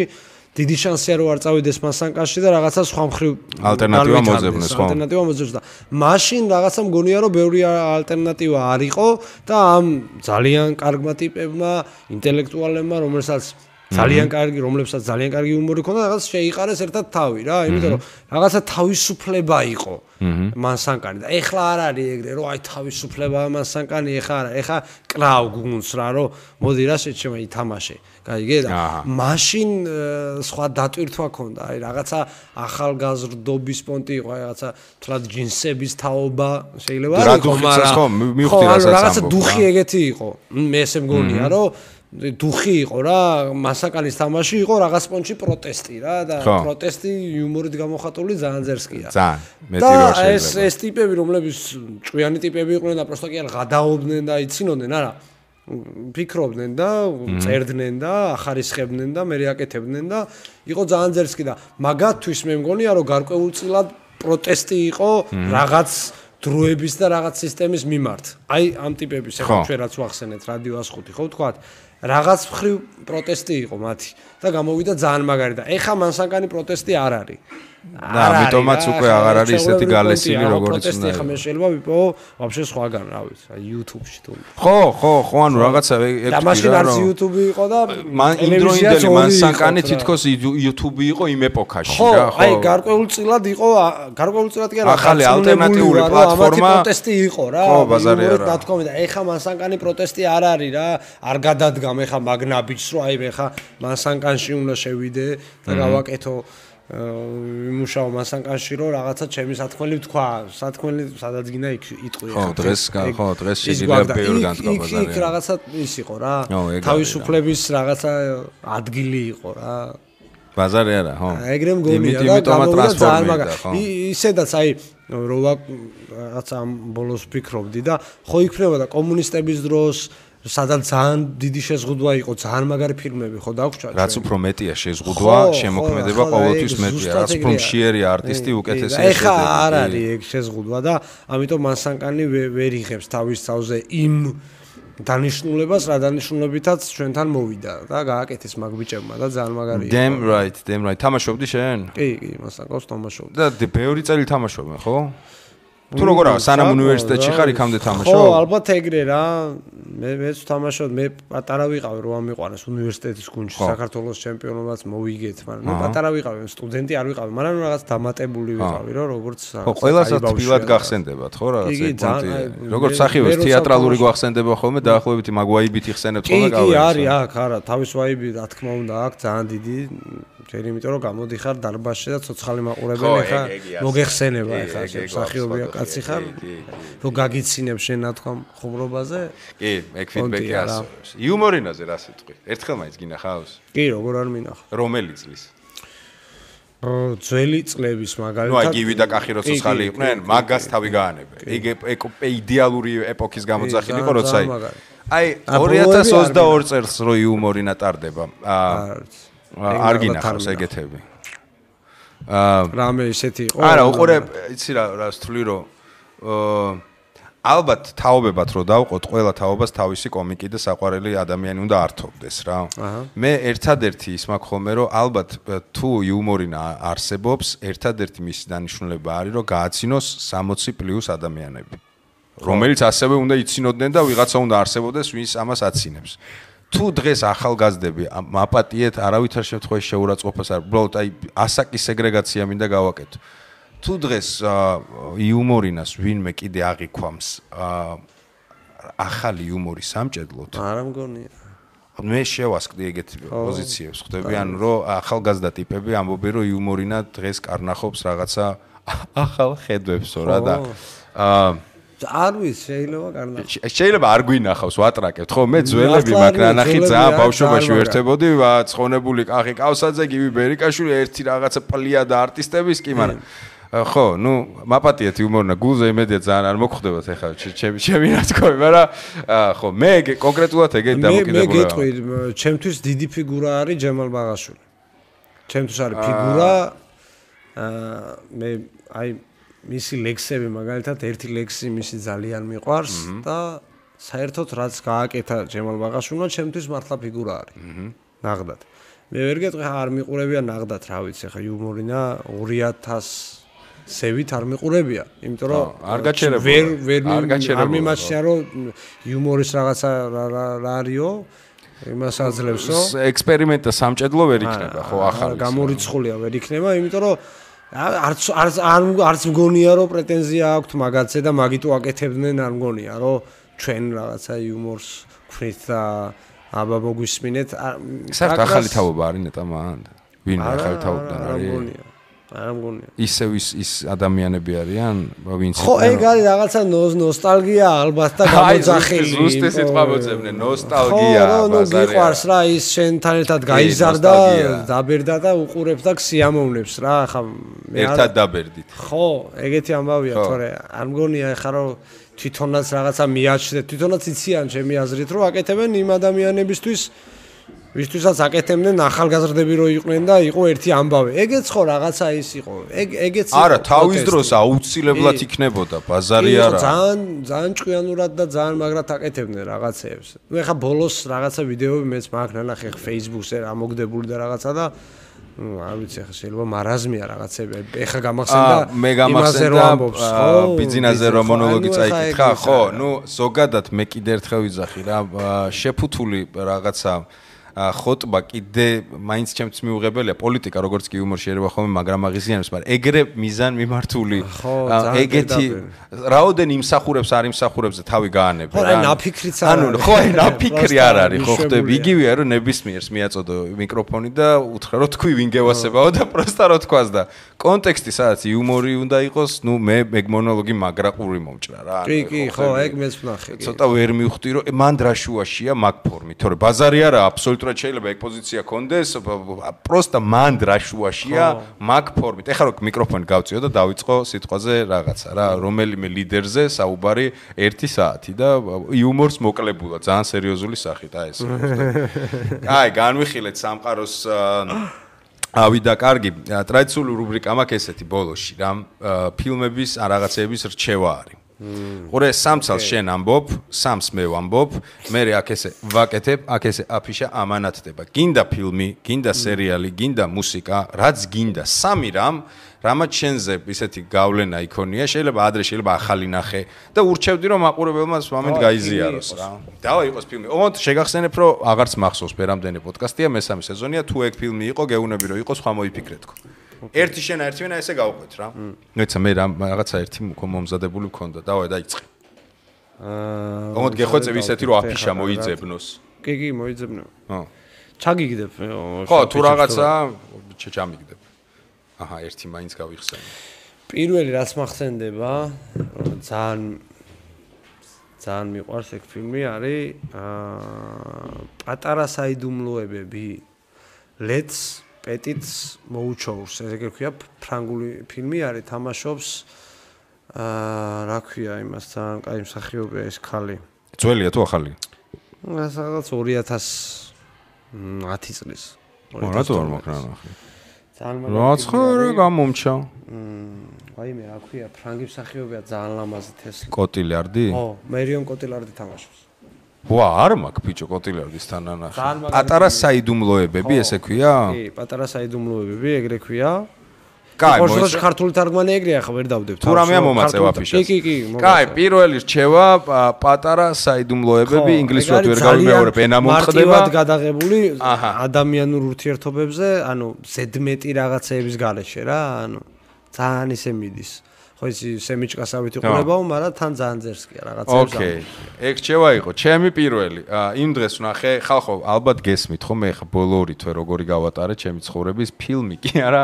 დიდი შანსია რომ არ წავიდეს მანსანკანში და რაღაცა სხვა მხრივ ალტერნატივა მოძებნეს ხო? ალტერნატივა მოძებნეს და მაშინ რაღაცა მგონია რომ ბევრი ალტერნატივა არ იყო და ამ ძალიან კარგმა ტიპებმა, ინტელექტუალებმა, რომლებსაც ძალიან კარგი იუმორი ჰქონდა, რაღაც შეიყარეს ერთად თავი რა, იმიტომ რომ რაღაცა თავისუფლება იყო მანსანკანი და ეხლა არ არის ეგრე რომ აი თავისუფლება მანსანკანი ეხლა არა, ეხლა კრავ გუნდს რა რომ მოდი რა შეჩემა ითამაშე. გაიგე და მაშინ სხვა დატვირთვა ქონდა, აი რაღაცა ახალგაზრდობის პონტი იყო, აი რაღაცა თლად ჯინსების თაობა შეიძლება არ იყო, მაგრამ მივხვდი რასაც რაღაცა დუხი ეგეთი იყო. მე ესე მგონია რომ დუხი იყო რა, მასაკანის თამაში იყო რაღაც პონჩი პროტესტი რა და პროტესტი იუმორით გამოხატული ძალიან ძერსკია. ძალიან მეტი რო შეიძლება. და ეს ტიპები რომლებიც ჭვიანი ტიპები იყვნენ და პროსტა კი არ გადაობდნენ და იცინოდნენ არა ფიქრობდნენ და წერდნენ და ახარისხებდნენ და მე აკეთებდნენ და იყო ძალიან ძერსკი და მაგათთვის მე მგონია რომ გარკვეულწილად პროტესტი იყო რაღაც დროების და რაღაც სისტემის მიმართ. აი ამ ტიპების ახლა ჩვენ რაც ვახსენეთ რადიო 105 ხო ვთქვათ რაღაც მხრივ პროტესტი იყო მათი და გამოვიდა ძალიან მაგარი და ეხა მანსანკანი პროტესტი არ არის. და ამიტომაც უკვე აღარ არის ესეთი გალესილი როგორც უნდა. ეხა მე შეიძლება ვიპოვო ვაფშე სხვაგან რა ვიცი, აი YouTube-ში თუ. ხო, ანუ რაღაცა ეგ და მაშინ არც YouTube იყო და იმდროინდელი მანსანკანი თითქოს YouTube იყო იმ ეპოქაში რა, ხო. აი გარკვეულწილად იყო, გარკვეულწილად კი არა, ახალი ალტერნატიული პლატფორმა პროტესტი იყო რა. ხო, ბაზარი არა. და თქვა და ეხა მანსანკანი პროტესტი არ არის რა, არ გადადგამ ეხა მაგნაბიჯს რომ აი ეხა მანსანკანში უნდა შევიდე და გავაკეთო იმუშაო მანსანკანში რომ რაღაცა ჩემი სათქმელი ვთქვა, სათქმელი სადაც გინდა იქ იტყვი ხო დღეს შეიძლება ბევრი განთქვა ბაზარი. იქ რაღაცა ის იყო რა. თავისუფლების რაღაცა ადგილი იყო რა. ბაზარი არა, ხო. ეგრე მგონია და გამოვიდა ძალიან მაგარი. ისედაც აი რომ რაღაცა ბოლოს ვფიქრობდი და ხო იქნებოდა კომუნისტების დროს სადაც ძალიან დიდი შეზღუდვა იყო, ძალიან მაგარი ფილმები ხო დაგვრჩა. რაც უფრო მეტია შეზღუდვა, შემოქმედება ყოველთვის მეტია, რაც უფრო მშიერი არტისტი უკეთესია შედეგი. ეხა არ არის ეგ შეზღუდვა და ამიტომ მანსანკანი ვერ იღებს თავის თავზე იმ დანიშნულებას, რა დანიშნულებითაც ჩვენთან მოვიდა და გააკეთეს მაგ ბიჭებმა და ძალიან მაგარი იყო. Damn right. თამაშობდი შენ? კი, მანსანკანს თამაშობდი. და ბევრი წელი თამაშობენ, ხო? თუ როგორ არა, სანამ უნივერსიტეტში ხარ, იქამდე თამაშობ? ხო, ალბათ ეგრე რა. მეც თამაშობ, მე პატარა ვიყავი, რომ ამიყვანეს უნივერსიტეტის გუნდში, საქართველოს ჩემპიონობაც მოვიგეთ, მაგრამ მე პატარა ვიყავი, სტუდენტი არ ვიყავი, მაგრამ რაღაც დამატებული ვიყავი, რომ როგორც ხო, ყველასაც თბილად გახსენდებათ, ხო, რაღაც პონტი. როგორც სახივეს თეატრალური გვახსენდება ხოლმე, დაახლოებით მაგ ვაიბით იხსენებთ ხოლმე გავიგე. კი, არის აქ, არა, თავის ვაიბი, რა თქმა უნდა, აქ ძალიან დიდი ჯერ იმიტომ რომ გამოდიხარ დარბაზში და ცოცხალი მაყურებელი ხარ, მოგეხსენება ეხლა მსახიობია კაცი ხარ, რომ გაგიცინებ შენ ნათქვამ ხუმრობაზე? კი, ეგ ფიდბექი ასწორებს. იუმორინაზე რა სიტყვი? ერთხელ მაინც გინახავს? კი, როგორ არ მინახავს. რომელი წლის? ძველი წლების მაგალითად. ნუ აი გივი და კახი რო ცოცხალი იყვნენ, მაგას თავი გაანებე. ეგ იდეალური ეპოქის გამოძახილი იყო, როცა აი 2022 წელს რო იუმორინა ტარდება. არ გინახავს ეგეთები. რამე ისეთი იყო? არა, უყურე, იცი რა სთვლი რომ ალბათ თაობებად რო დავყოთ, ყველა თაობას თავისი კომიკი და საყვარელი ადამიანი უნდა ართობდეს რა. მე ერთადერთი ის მაქვს ხოლმე რომ ალბათ თუ იუმორინა არსებობს, ერთადერთი მისი დანიშნულება არის რომ გააცინოს 60+ ადამიანები. რომელიც ასევე უნდა იცინოდნენ და ვიღაცა უნდა არსებობდეს, ვინც ამას აცინებს. თუ დღეს ახალგაზრდები მაპატიეთ არავითარ შემთხვევაში შეურაცხყოფას არ, უბრალოდ აი ასაკის სეგრეგაცია მინდა გავაკეთო. თუ დღეს იუმორინას ვინმე კიდე აღიქვამს ახალი იუმორის სამჭედლოდ, არა მგონია. მე შევასკდი ეგეთ პოზიციებს, ხვდები, ანუ რომ ახალგაზრდა ტიპები ამბობენ რომ იუმორინა დღეს კარნახობს რაღაცა ახალ ხედვებსო რა და არ ვიცი, შეიძლება კარნახოს. შეიძლება არ გვინახავს, ვატრაკებთ, ხო? მე ძველები მაგ რანახი ძალიან ბავშვობაში ვერთებოდი, ცხონებული კახი კავსაძე, გივი ბერიკაშვილი, ერთი რაღაცა პლიადა არტისტების კი, მაგრამ ხო, ნუ მაპატიეთ იუმორინა გულზე იმედია ძალიან არ მოგხვდებათ ახლა ჩემი ნათქვამი, მაგრამ ხო, მე კონკრეტულად ეგეთ დამოკიდებული ვარ. მე გეტყვი, ჩემთვის დიდი ფიგურა არის ჯემალ ბაღაშვილი. ჩემთვის არის ფიგურა მე აი მისი ლექსები მაგალითად ერთი ლექსი მისი ძალიან მიყვარს და საერთოდ რაც გააკეთა ჯემალ ბაღაშვილმა ჩემთვის მართლა ფიგურა არის. ნაღდად. მე ვერ გეტყვი არ მიყურებია ნაღდად, რა ვიცი, ხა იუმორინა 2000-ევით არ მიყურებია, იმიტომ რომ არ გაჩერებულა. არ მიმაჩნია რომ იუმორის რაღაცა რა არისო, იმას აძლევსო. ექსპერიმენტა სამჭედლო ვერ იქნება, ხო, ახალი. გამორიცხულია ვერ იქნება, იმიტომ რომ არც მგონია რომ პრეტენზია აქვთ მაგაცზე და მაგით უაკეთებდნენ, არ მგონია რომ ჩვენ რაღაცა იუმორს ვქნით და აბა მოგვისმინეთ. საერთოდ ახალი თაობა არის ნეტა მან. ვინ ახალი თაობიდან არის? არ მგონია. ისევ ის ადამიანები არიან, ვინც ხო, ეგ არის რაღაცა ნოსტალგია ალბათ და გამოძახილი. ზუსტი სიტყვა მოძებნე, ნოსტალგია. ხო, ნუ გიყვარს რა ის შენთან ერთად გაიზარდა, დაბერდა და უყურებს და სიამოვნებს რა, ხა მე ერთად დაბერდით. ხო, ეგეთი ამბავია, თორე არ მგონია ხა რომ თვითონაც რაღაცა მიაჩნდეთ, თვითონაც იციან ჩემი აზრით რომ აკეთებენ იმ ადამიანებისთვის ვისთვისაც აკეთებდნენ ახალგაზრდები რო იყვნენ და იყო ერთი ამბავი. ეგეც ხო რაღაცა ის იყო. ეგეც არა, თავის დროს აუცილებლად იქნებოდა, ბაზარი არა. ძალიან ჭკვიანურად და ძალიან მაგრად აკეთებდნენ რაღაცეებს. ნუ ეხა ბოლოს რაღაცა ვიდეოები მეც მაქვს ნანახი Facebook-ზე რა მოგდებული და რაღაცა და არ ვიცი ეხა შეიძლება მარაზმია რაღაცები. ეხა გამახსენდა იმაზე რომ ამბობს, ხო? ბიზნესზე რომ მონოლოგი წაიკითხა, ხო? ნუ ზოგადად მე კიდე ერთხელ ვიძახი რა, შეფუთული რაღაცა ხოტბა კიდე მაინც ჩემთვის მიუღებელია პოლიტიკა როგორც კი იუმორ შეიძლება ხოლმე მაგრამ აღიზიანებს მაგრამ ეგრე მიზან მიმართული ეგეთი რაოდენ იმსახურებს არ იმსახურებს და თავი გაანებე რა ანუ ნაფიქრიც არ არის ხო ნაფიქრი არ არის ხო ხტები იგივეა რომ ნებისმიერს მიაწოდო მიკროფონი და უთხრა რომ თქვი ვინ გევასებაო და პროსტა რო თქვას და კონტექსტი სადაც იუმორი უნდა იყოს ნუ მე ეგ მონოლოგი მაგრაყური მომჭრა რა კი ხო ეგ მეც ვნახე ცოტა ვერ მივხვდი რომ მან დრაშუაშია მაგ ფორმით თორე ბაზარი არა აბსოლუტურად შეიძლება ეგ პოზიცია კონდეს პროსტა მან დრაშუაშია მაგ ფორმით ეხლა რო მიკროფონი გავწიო და დავიწყო სიტყვაზე რაღაცა რა რომელიმე ლიდერზე საუბარი 1 საათი და იუმორს მოკლებულა ძალიან სერიოზული სახით აი ეს აი განვიხილეთ სამყაროს ავიდა კარგი ტრადიციული რუბრიკა მაქვს ესეთი ბოლოში რა ფილმების ან რაღაცეების რჩევა არის ყურე სამცალს შენ ამბობ სამს მე ვამბობ მე აქ ესე ვაკეთებ აქ ესე აფიშა ამანათდება გინდა ფილმი გინდა სერიალი გინდა მუსიკა რაც გინდა სამი რამაც შენზე ისეთი გავლენა იქონია შეიძლება ადრე შეიძლება ახალი ნახე და ურჩევდი რომ მაყურებელმა მომენტ გაიზიაროს რა დავა იყოს ფილმი ოღონდ შეგახსენებ რომ აღარც მახსოვს ფერამდენი პოდკასტია მესამე სეზონია თუ ეგ ფილმი იყო გეუნები რომ იყოს ხვა მოიფიქრეთქო ერთი შენა ერთი ვენა ესე გავყვეთ რა ნოიცა მე რაღაცა ერთი მომზადებული მქონდა დავა დაიწყე ოღონდ გეხვეწები ისეთი რომ აფიშა მოიძებნოს კი მოიძებნო ჩაგიგდებ. ხო, თუ რაღაცა ჩამიგდებ. აჰა, ერთი მაინც გავიხსენე. პირველი რაც მახსენდება, ძალიან მიყვარს ეგ ფილმი არის პატარა საიდუმლოებები. Let's Petits მოუჩოურს, ესე ქვია ფრანგული ფილმი არის, თამაშობს რა ქვია იმასთან, კაი მსახიობია ეს ხალი. ძველია თუ ახალია? რაღაც 2010 წლის. რატო არ მაქვს რა ნახე? ძალიან რაც ხარ გამომჩა. ვაიმე რა ქვია, ფრანგი მსახიობია ძალიან ლამაზი თესლი. კოტილარდი? ხო, მერიონ კოტილარდი თამაშობს. ვა, არ მაქვს ბიჭო კოტილარდის თანანახი. პატარა საიდუმლოებები ესე ქვია? კი, პატარა საიდუმლოებები, ეგრე ქვია. კაი, მოიცა ქართული თარგმანი ეგრეა, ხა ვერ დავდებთ. თუ რამეა მომაწევ აფიშას. კი. კაი, პირველი რჩევა პატარა საიდუმლოებები, ინგლისურად ვერ გავიმეორებ, ენა მომხდება. მარტივად გადაღებული ადამიანურ ურთიერთობებზე, ანუ ზედმეტი რაღაცეების გარეშე რა, ანუ ძალიან ისე მიდის. ხო ისი სემიჭკასავით იყურებაო, მაგრამ თან ძალიან ძერსკია რაღაცეებს. ოკეი. ეგ რჩევა იყო, ჩემი პირველი. იმ დღეს ვნახე, ხალხო, ალბათ გესმით ხომ, მე ხა ბოლო ორი თვე როგორი გავატარე ჩემი ცხოვრების ფილმი კი არა,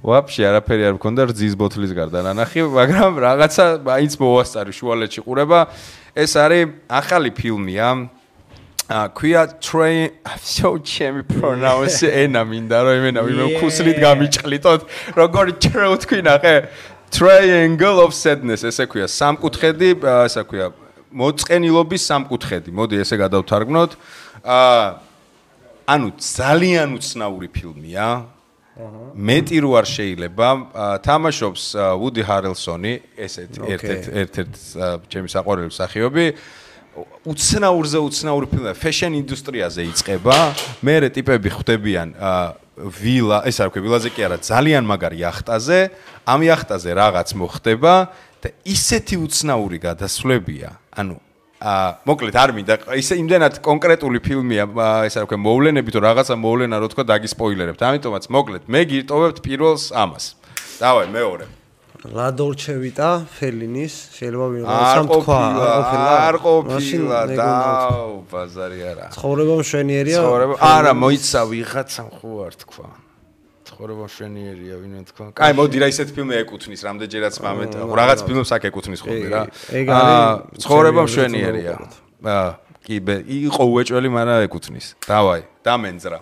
ვაფშე არაფერი არ მქონდა რძის ბოთლის გარდა ნანახი, მაგრამ რაღაცა მაინც მოვასწარი შუალედში ყურება. ეს არის ახალი ფილმია. ქვია Train, so ჩემი pronounce ენა მინდა რომ იმენა ვინმე ქუსლით გამიჭყლიტოთ, როგორი ჩრეუ თქვი ნახე. Triangle of Sadness, ესე ქვია, სამკუთხედი, ესა ქვია, მოწყენილობის სამკუთხედი. მოდი ესე გადავთარგმნოთ. ანუ ძალიან უცნაური ფილმია. მეტი რო არ შეიძლება, თამაშობს Woody Harrelsoni, ერთ-ერთ ჩემი საყვარელი მსახიობი. უცნაური ფილმია, fashion ინდუსტრიაზე იწყება. მერე ტიპები ხვდებიან ვილა, ეს არ ქვია, ვილაზე კი არა, ძალიან მაგარი იახტაზე, ამ იახტაზე რაღაც მოხდება და ისეთი უცნაური გადასვლებია. ანუ მოკლედ არ მინდა, ისე იმდენად კონკრეტული ფილმია, ეს არ ქვია, მოვლენები თუ რაღაცა მოვლენა რო თქვა დაგისპოილერებთ. ამიტომაც მოკლედ მე გირტოვებთ პირველს ამას. დავай მეორე. La Dolce Vita Fellinis, შეიძლება ვინმე თქვა, არ ყოფილა და ბაზარი არა. ცხოვრება მშვენიერია. არა, მოიცა ვიღაცამ ხო არ თქვა. ცხოვრება მშვენიერია, ვინმე თქვა. კაი, მოდი რა ისეთ ფილმი ეკუთვნის, რამდენჯერაც მამეთ, რაღაც ფილმს აქ ეკუთვნის ხოლმე რა. ცხოვრება მშვენიერია. კი, იყო უეჭველი, მაგრამ ეკუთვნის. დავაი, დამენძრა.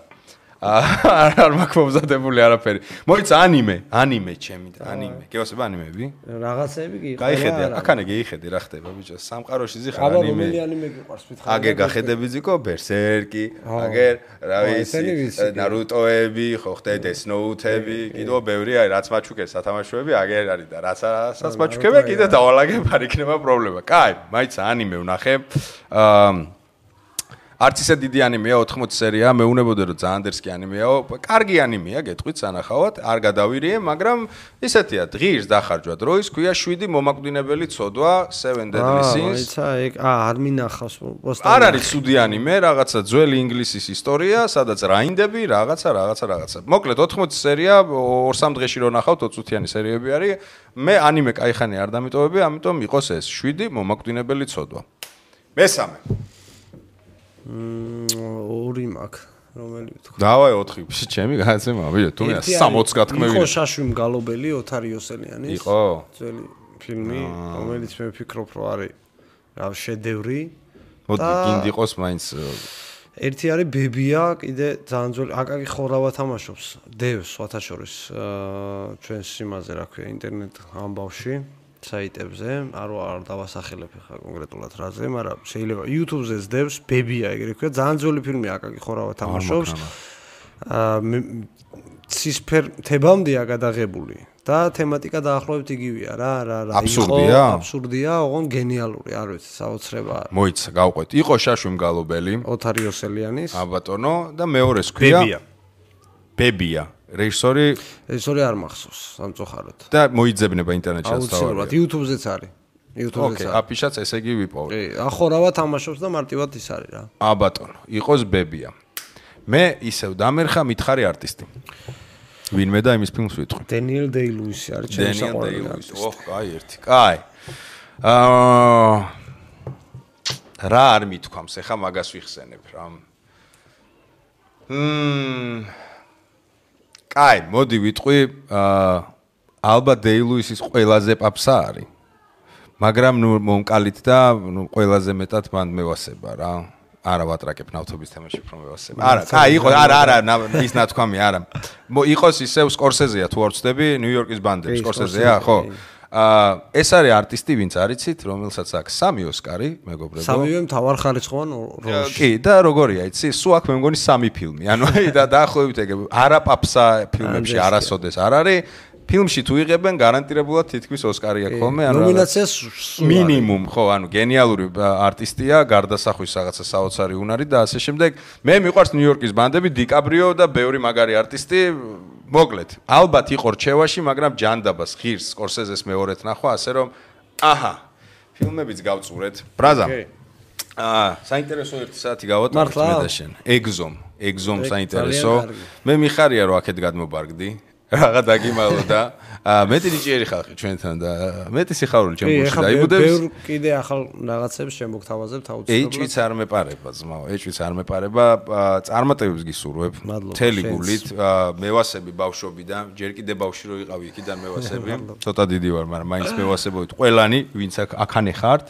არ მაქვს მომზადებული არაფერი. მოიცა ანიმე ჩემი და ანიმე. გეოსება ანიმეები? რაღაცეები კი. გაიხედე, აქანე გეიხედე რა ხდება ბიჭო. სამყაროში ზიხარ ანიმე. აბა რომელი ანიმე გიყვარს მითხარ? აგერ გახედები ზიკო ბერსერკი, აგერ რა ვიცი, ნარუტოები, ხო ხდე დესნოუთები, კიდევ ბევრი არის რაც მაჩუკეს სათამაშოები, აგერ არის და რასაც მაჩუკება კიდე დავალაგებ არ იქნება პრობლემა. კაი, მაიცა ანიმე ვნახე. არც ისე დიდი ანიმეა 80 სერია, მეუნებოდა რომ ძალიან დერსკი ანიმეაო. კარგი ანიმეა, გეტყვით სანახავად, არ გადავირიე, მაგრამ ისეთია, ღირს დახარჯვა დროის, ქვია 7 მომაკვდინებელი ცოდვა, 7 Deadly Sins. აიცა, ეგ არ მინახავს პოსტერი. არ არის ცუდი ანიმე, რაღაცა ძველი ინგლისის ისტორია, სადაც რაინდები, რაღაცა. მოკლედ 80 სერია, 2-3 დღეში რო ნახავთ 20 წუთიანი სერიები არის. მე ანიმე кайხანი არ დამიტოვები, ამიტომ იყოს ეს 7 მომაკვდინებელი ცოდვა. მესამე ორი მაქვს, რომელი ვთქვა. დავაი 4, ჩემი განაცემა, ბიჭო, თუ მე 60 გათქმევინე. იყო შაშვი მგალობელი ოთარ იოსელიანის. იყო ძველი ფილმი, რომელიც მე ვფიქრობ, რომ არის რა შედევრი. მოდი, გინდი იყოს მაინც. ერთი არის ბებია, კიდე ძალიან ძველი, აკაკი ხორავა თამაშობს. დევს ვათაშორის ჩვენს იმაზე, რა ქვია, ინტერნეტ ამბავში. საიტებზე, არ დავასახელებ ხა კონკრეტულად რაზე, მაგრამ შეიძლება YouTube-ზე ზდევს ბებია, ეგრე ქვია, ძალიან ძველი ფილმია, აკაკი ხორავა თამაშობს. ცისფერ თებამდეა გადაღებული და თემატიკა დაახლოებით იგივეა რა აბსურდია, ოღონ გენიალური, არ ვიცი, საოცრება. მოიცა, გავყვეთ. იყო შაშვი მგალობელი, ოთარ იოსელიანის. აბატონო და მეორეს ქვია ბებია. რეჟისორი არ მახსოვს, სამწუხაროდ. და მოიძებნება ინტერნეტში აუცილებლად, YouTube-ზეც არის. YouTube-ზეც. ოკეი, აფიშაც ესე იგი ვიპოვე. კი, ახორავა თამაშობს და მარტივად ის არის რა. აბატონო, იყოს ბებია. მე ისევ დამერხა მითხარი არტისტი. ვინმე და იმის ფილმს ვიტყვი. დენიელ დეი-ლუისი არის ჩემი საყვარელი არტისტი. ოჰ, კაი ერთი. კაი. რა არ მithქვამს, ეხა მაგას ვიხსენებ რა. კაი, მოდი ვიტყვი, ალბათ დეილუისის ყველაზე პაპსა არის. მაგრამ ნუ მომკალით და ნუ ყველაზე მეტად მან მევასება რა. არა ვატრაკებ ნავთობის თემაში უფრო მევასება. არა, კაი, იყო, არა, ის ნათქვამი, არა. იყოს ისევ სკორსეზეა თუ არ ვწდები, ნიუ-იორკის ბანდები, სკორსეზეა, ხო? ეს არის არტისტი, ვინც არიცით, რომელსაც აქვს 3 ოსკარი, მეგობრებო. 3-ვე მთავარხარისხოვან როლში. კი, და როგორია, იცი, სულ აქვს მე მგონი 3 ფილმი. ანუ და დაახლოებით ეგ არა პაპსა ფილმებში არასოდეს არ არის. ფილმში თუ იღებენ გარანტირებულად თითქმის ოსკარი აქვს ხოლმე, ანუ ნომინაციას მინიმუმ, ხო, ანუ გენიალური არტისტია, გარდასახვის რაღაცა საოცარი უნარი და ასე შემდეგ. მე მიყვარს ნიუ-იორკის ბანდები, დიკაბრიო და ბევრი მაგარი არტისტი. მოკლედ, ალბათ იყო რჩევაში, მაგრამ ჯანდაბას ღირს სკორსეზეს მეორედ ნახვა, ასე რომ აჰა, ფილმებიც გავწურეთ. ბრაზა. საინტერესო 1 საათი გავატარეთ მე და შენ. ეგზომ საინტერესო. მე მიხარია რომ აქეთ გადმობარგდი. რაღა დაგიმალო და მეტი ნიჭიერი ხალხი ჩვენთან და მეტი სიხარული ჩემ გულში დაიბუდებს. ბევრ კიდე ახალ რაღაცებს შემოგთავაზებთ აუცილებლად. ეჭვიც არ მეპარება ძმაო, ეჭვიც არ მეპარება. წარმატებებს გისურვებ. მთელი გულით. მევასები ბავშვობიდან, ჯერ კიდე ბავშვი რო იყავი იქიდან მევასები. ცოტა დიდი ვარ, მაგრამ მაინც მევასებოით ყველანი, ვინც აქ ხართ.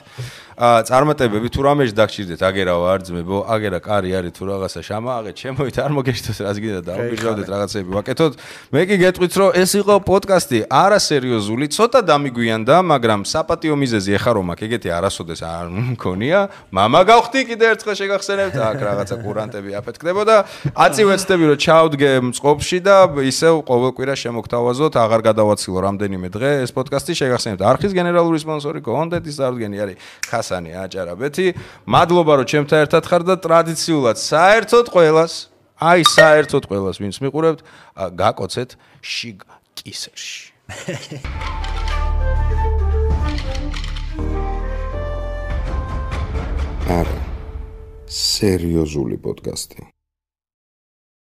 წარმატებები თუ რამეში დაგჭირდეთ, აგერავა არ ძმებო, აგერა კარი არის თუ რაღაცა შამააღეთ, შემოით არ მოგეშთოს რას გინდა დაუგიჟავდეთ რაღაცები ვაკეთოთ. მე კი გეტყვით რომ ეს იყო პოდკასტი არასერიოზული, ცოტა დამიგვიანდა, მაგრამ საპატიო მიზეზი ეხა რომ აქ ეგეთი არასოდეს არ მქონია. მამა გავხდი კიდე ერთხელ შეგახსენებთ, აქ რაღაცა კურანტები აფეთქდებოდა. აწივეცდები რომ ჩავდგე მწყობში და ისევ ყოველ კვირა შემოგთავაზოთ, აღარ გადავაცილო რამდენიმე დღე ეს პოდკასტი შეგახსენებთ. არხის გენერალური სპონსორი კონტენტის წარდგენი არის ხასანი აჭარაბეთი. მადლობა რომ ჩემთან ერთად ხარ და ტრადიციულად საერთოდ ყველას, ვინც მიყურებთ, გაკოცეთ შიგ კისერში. არა, სერიოზული პოდკასტი.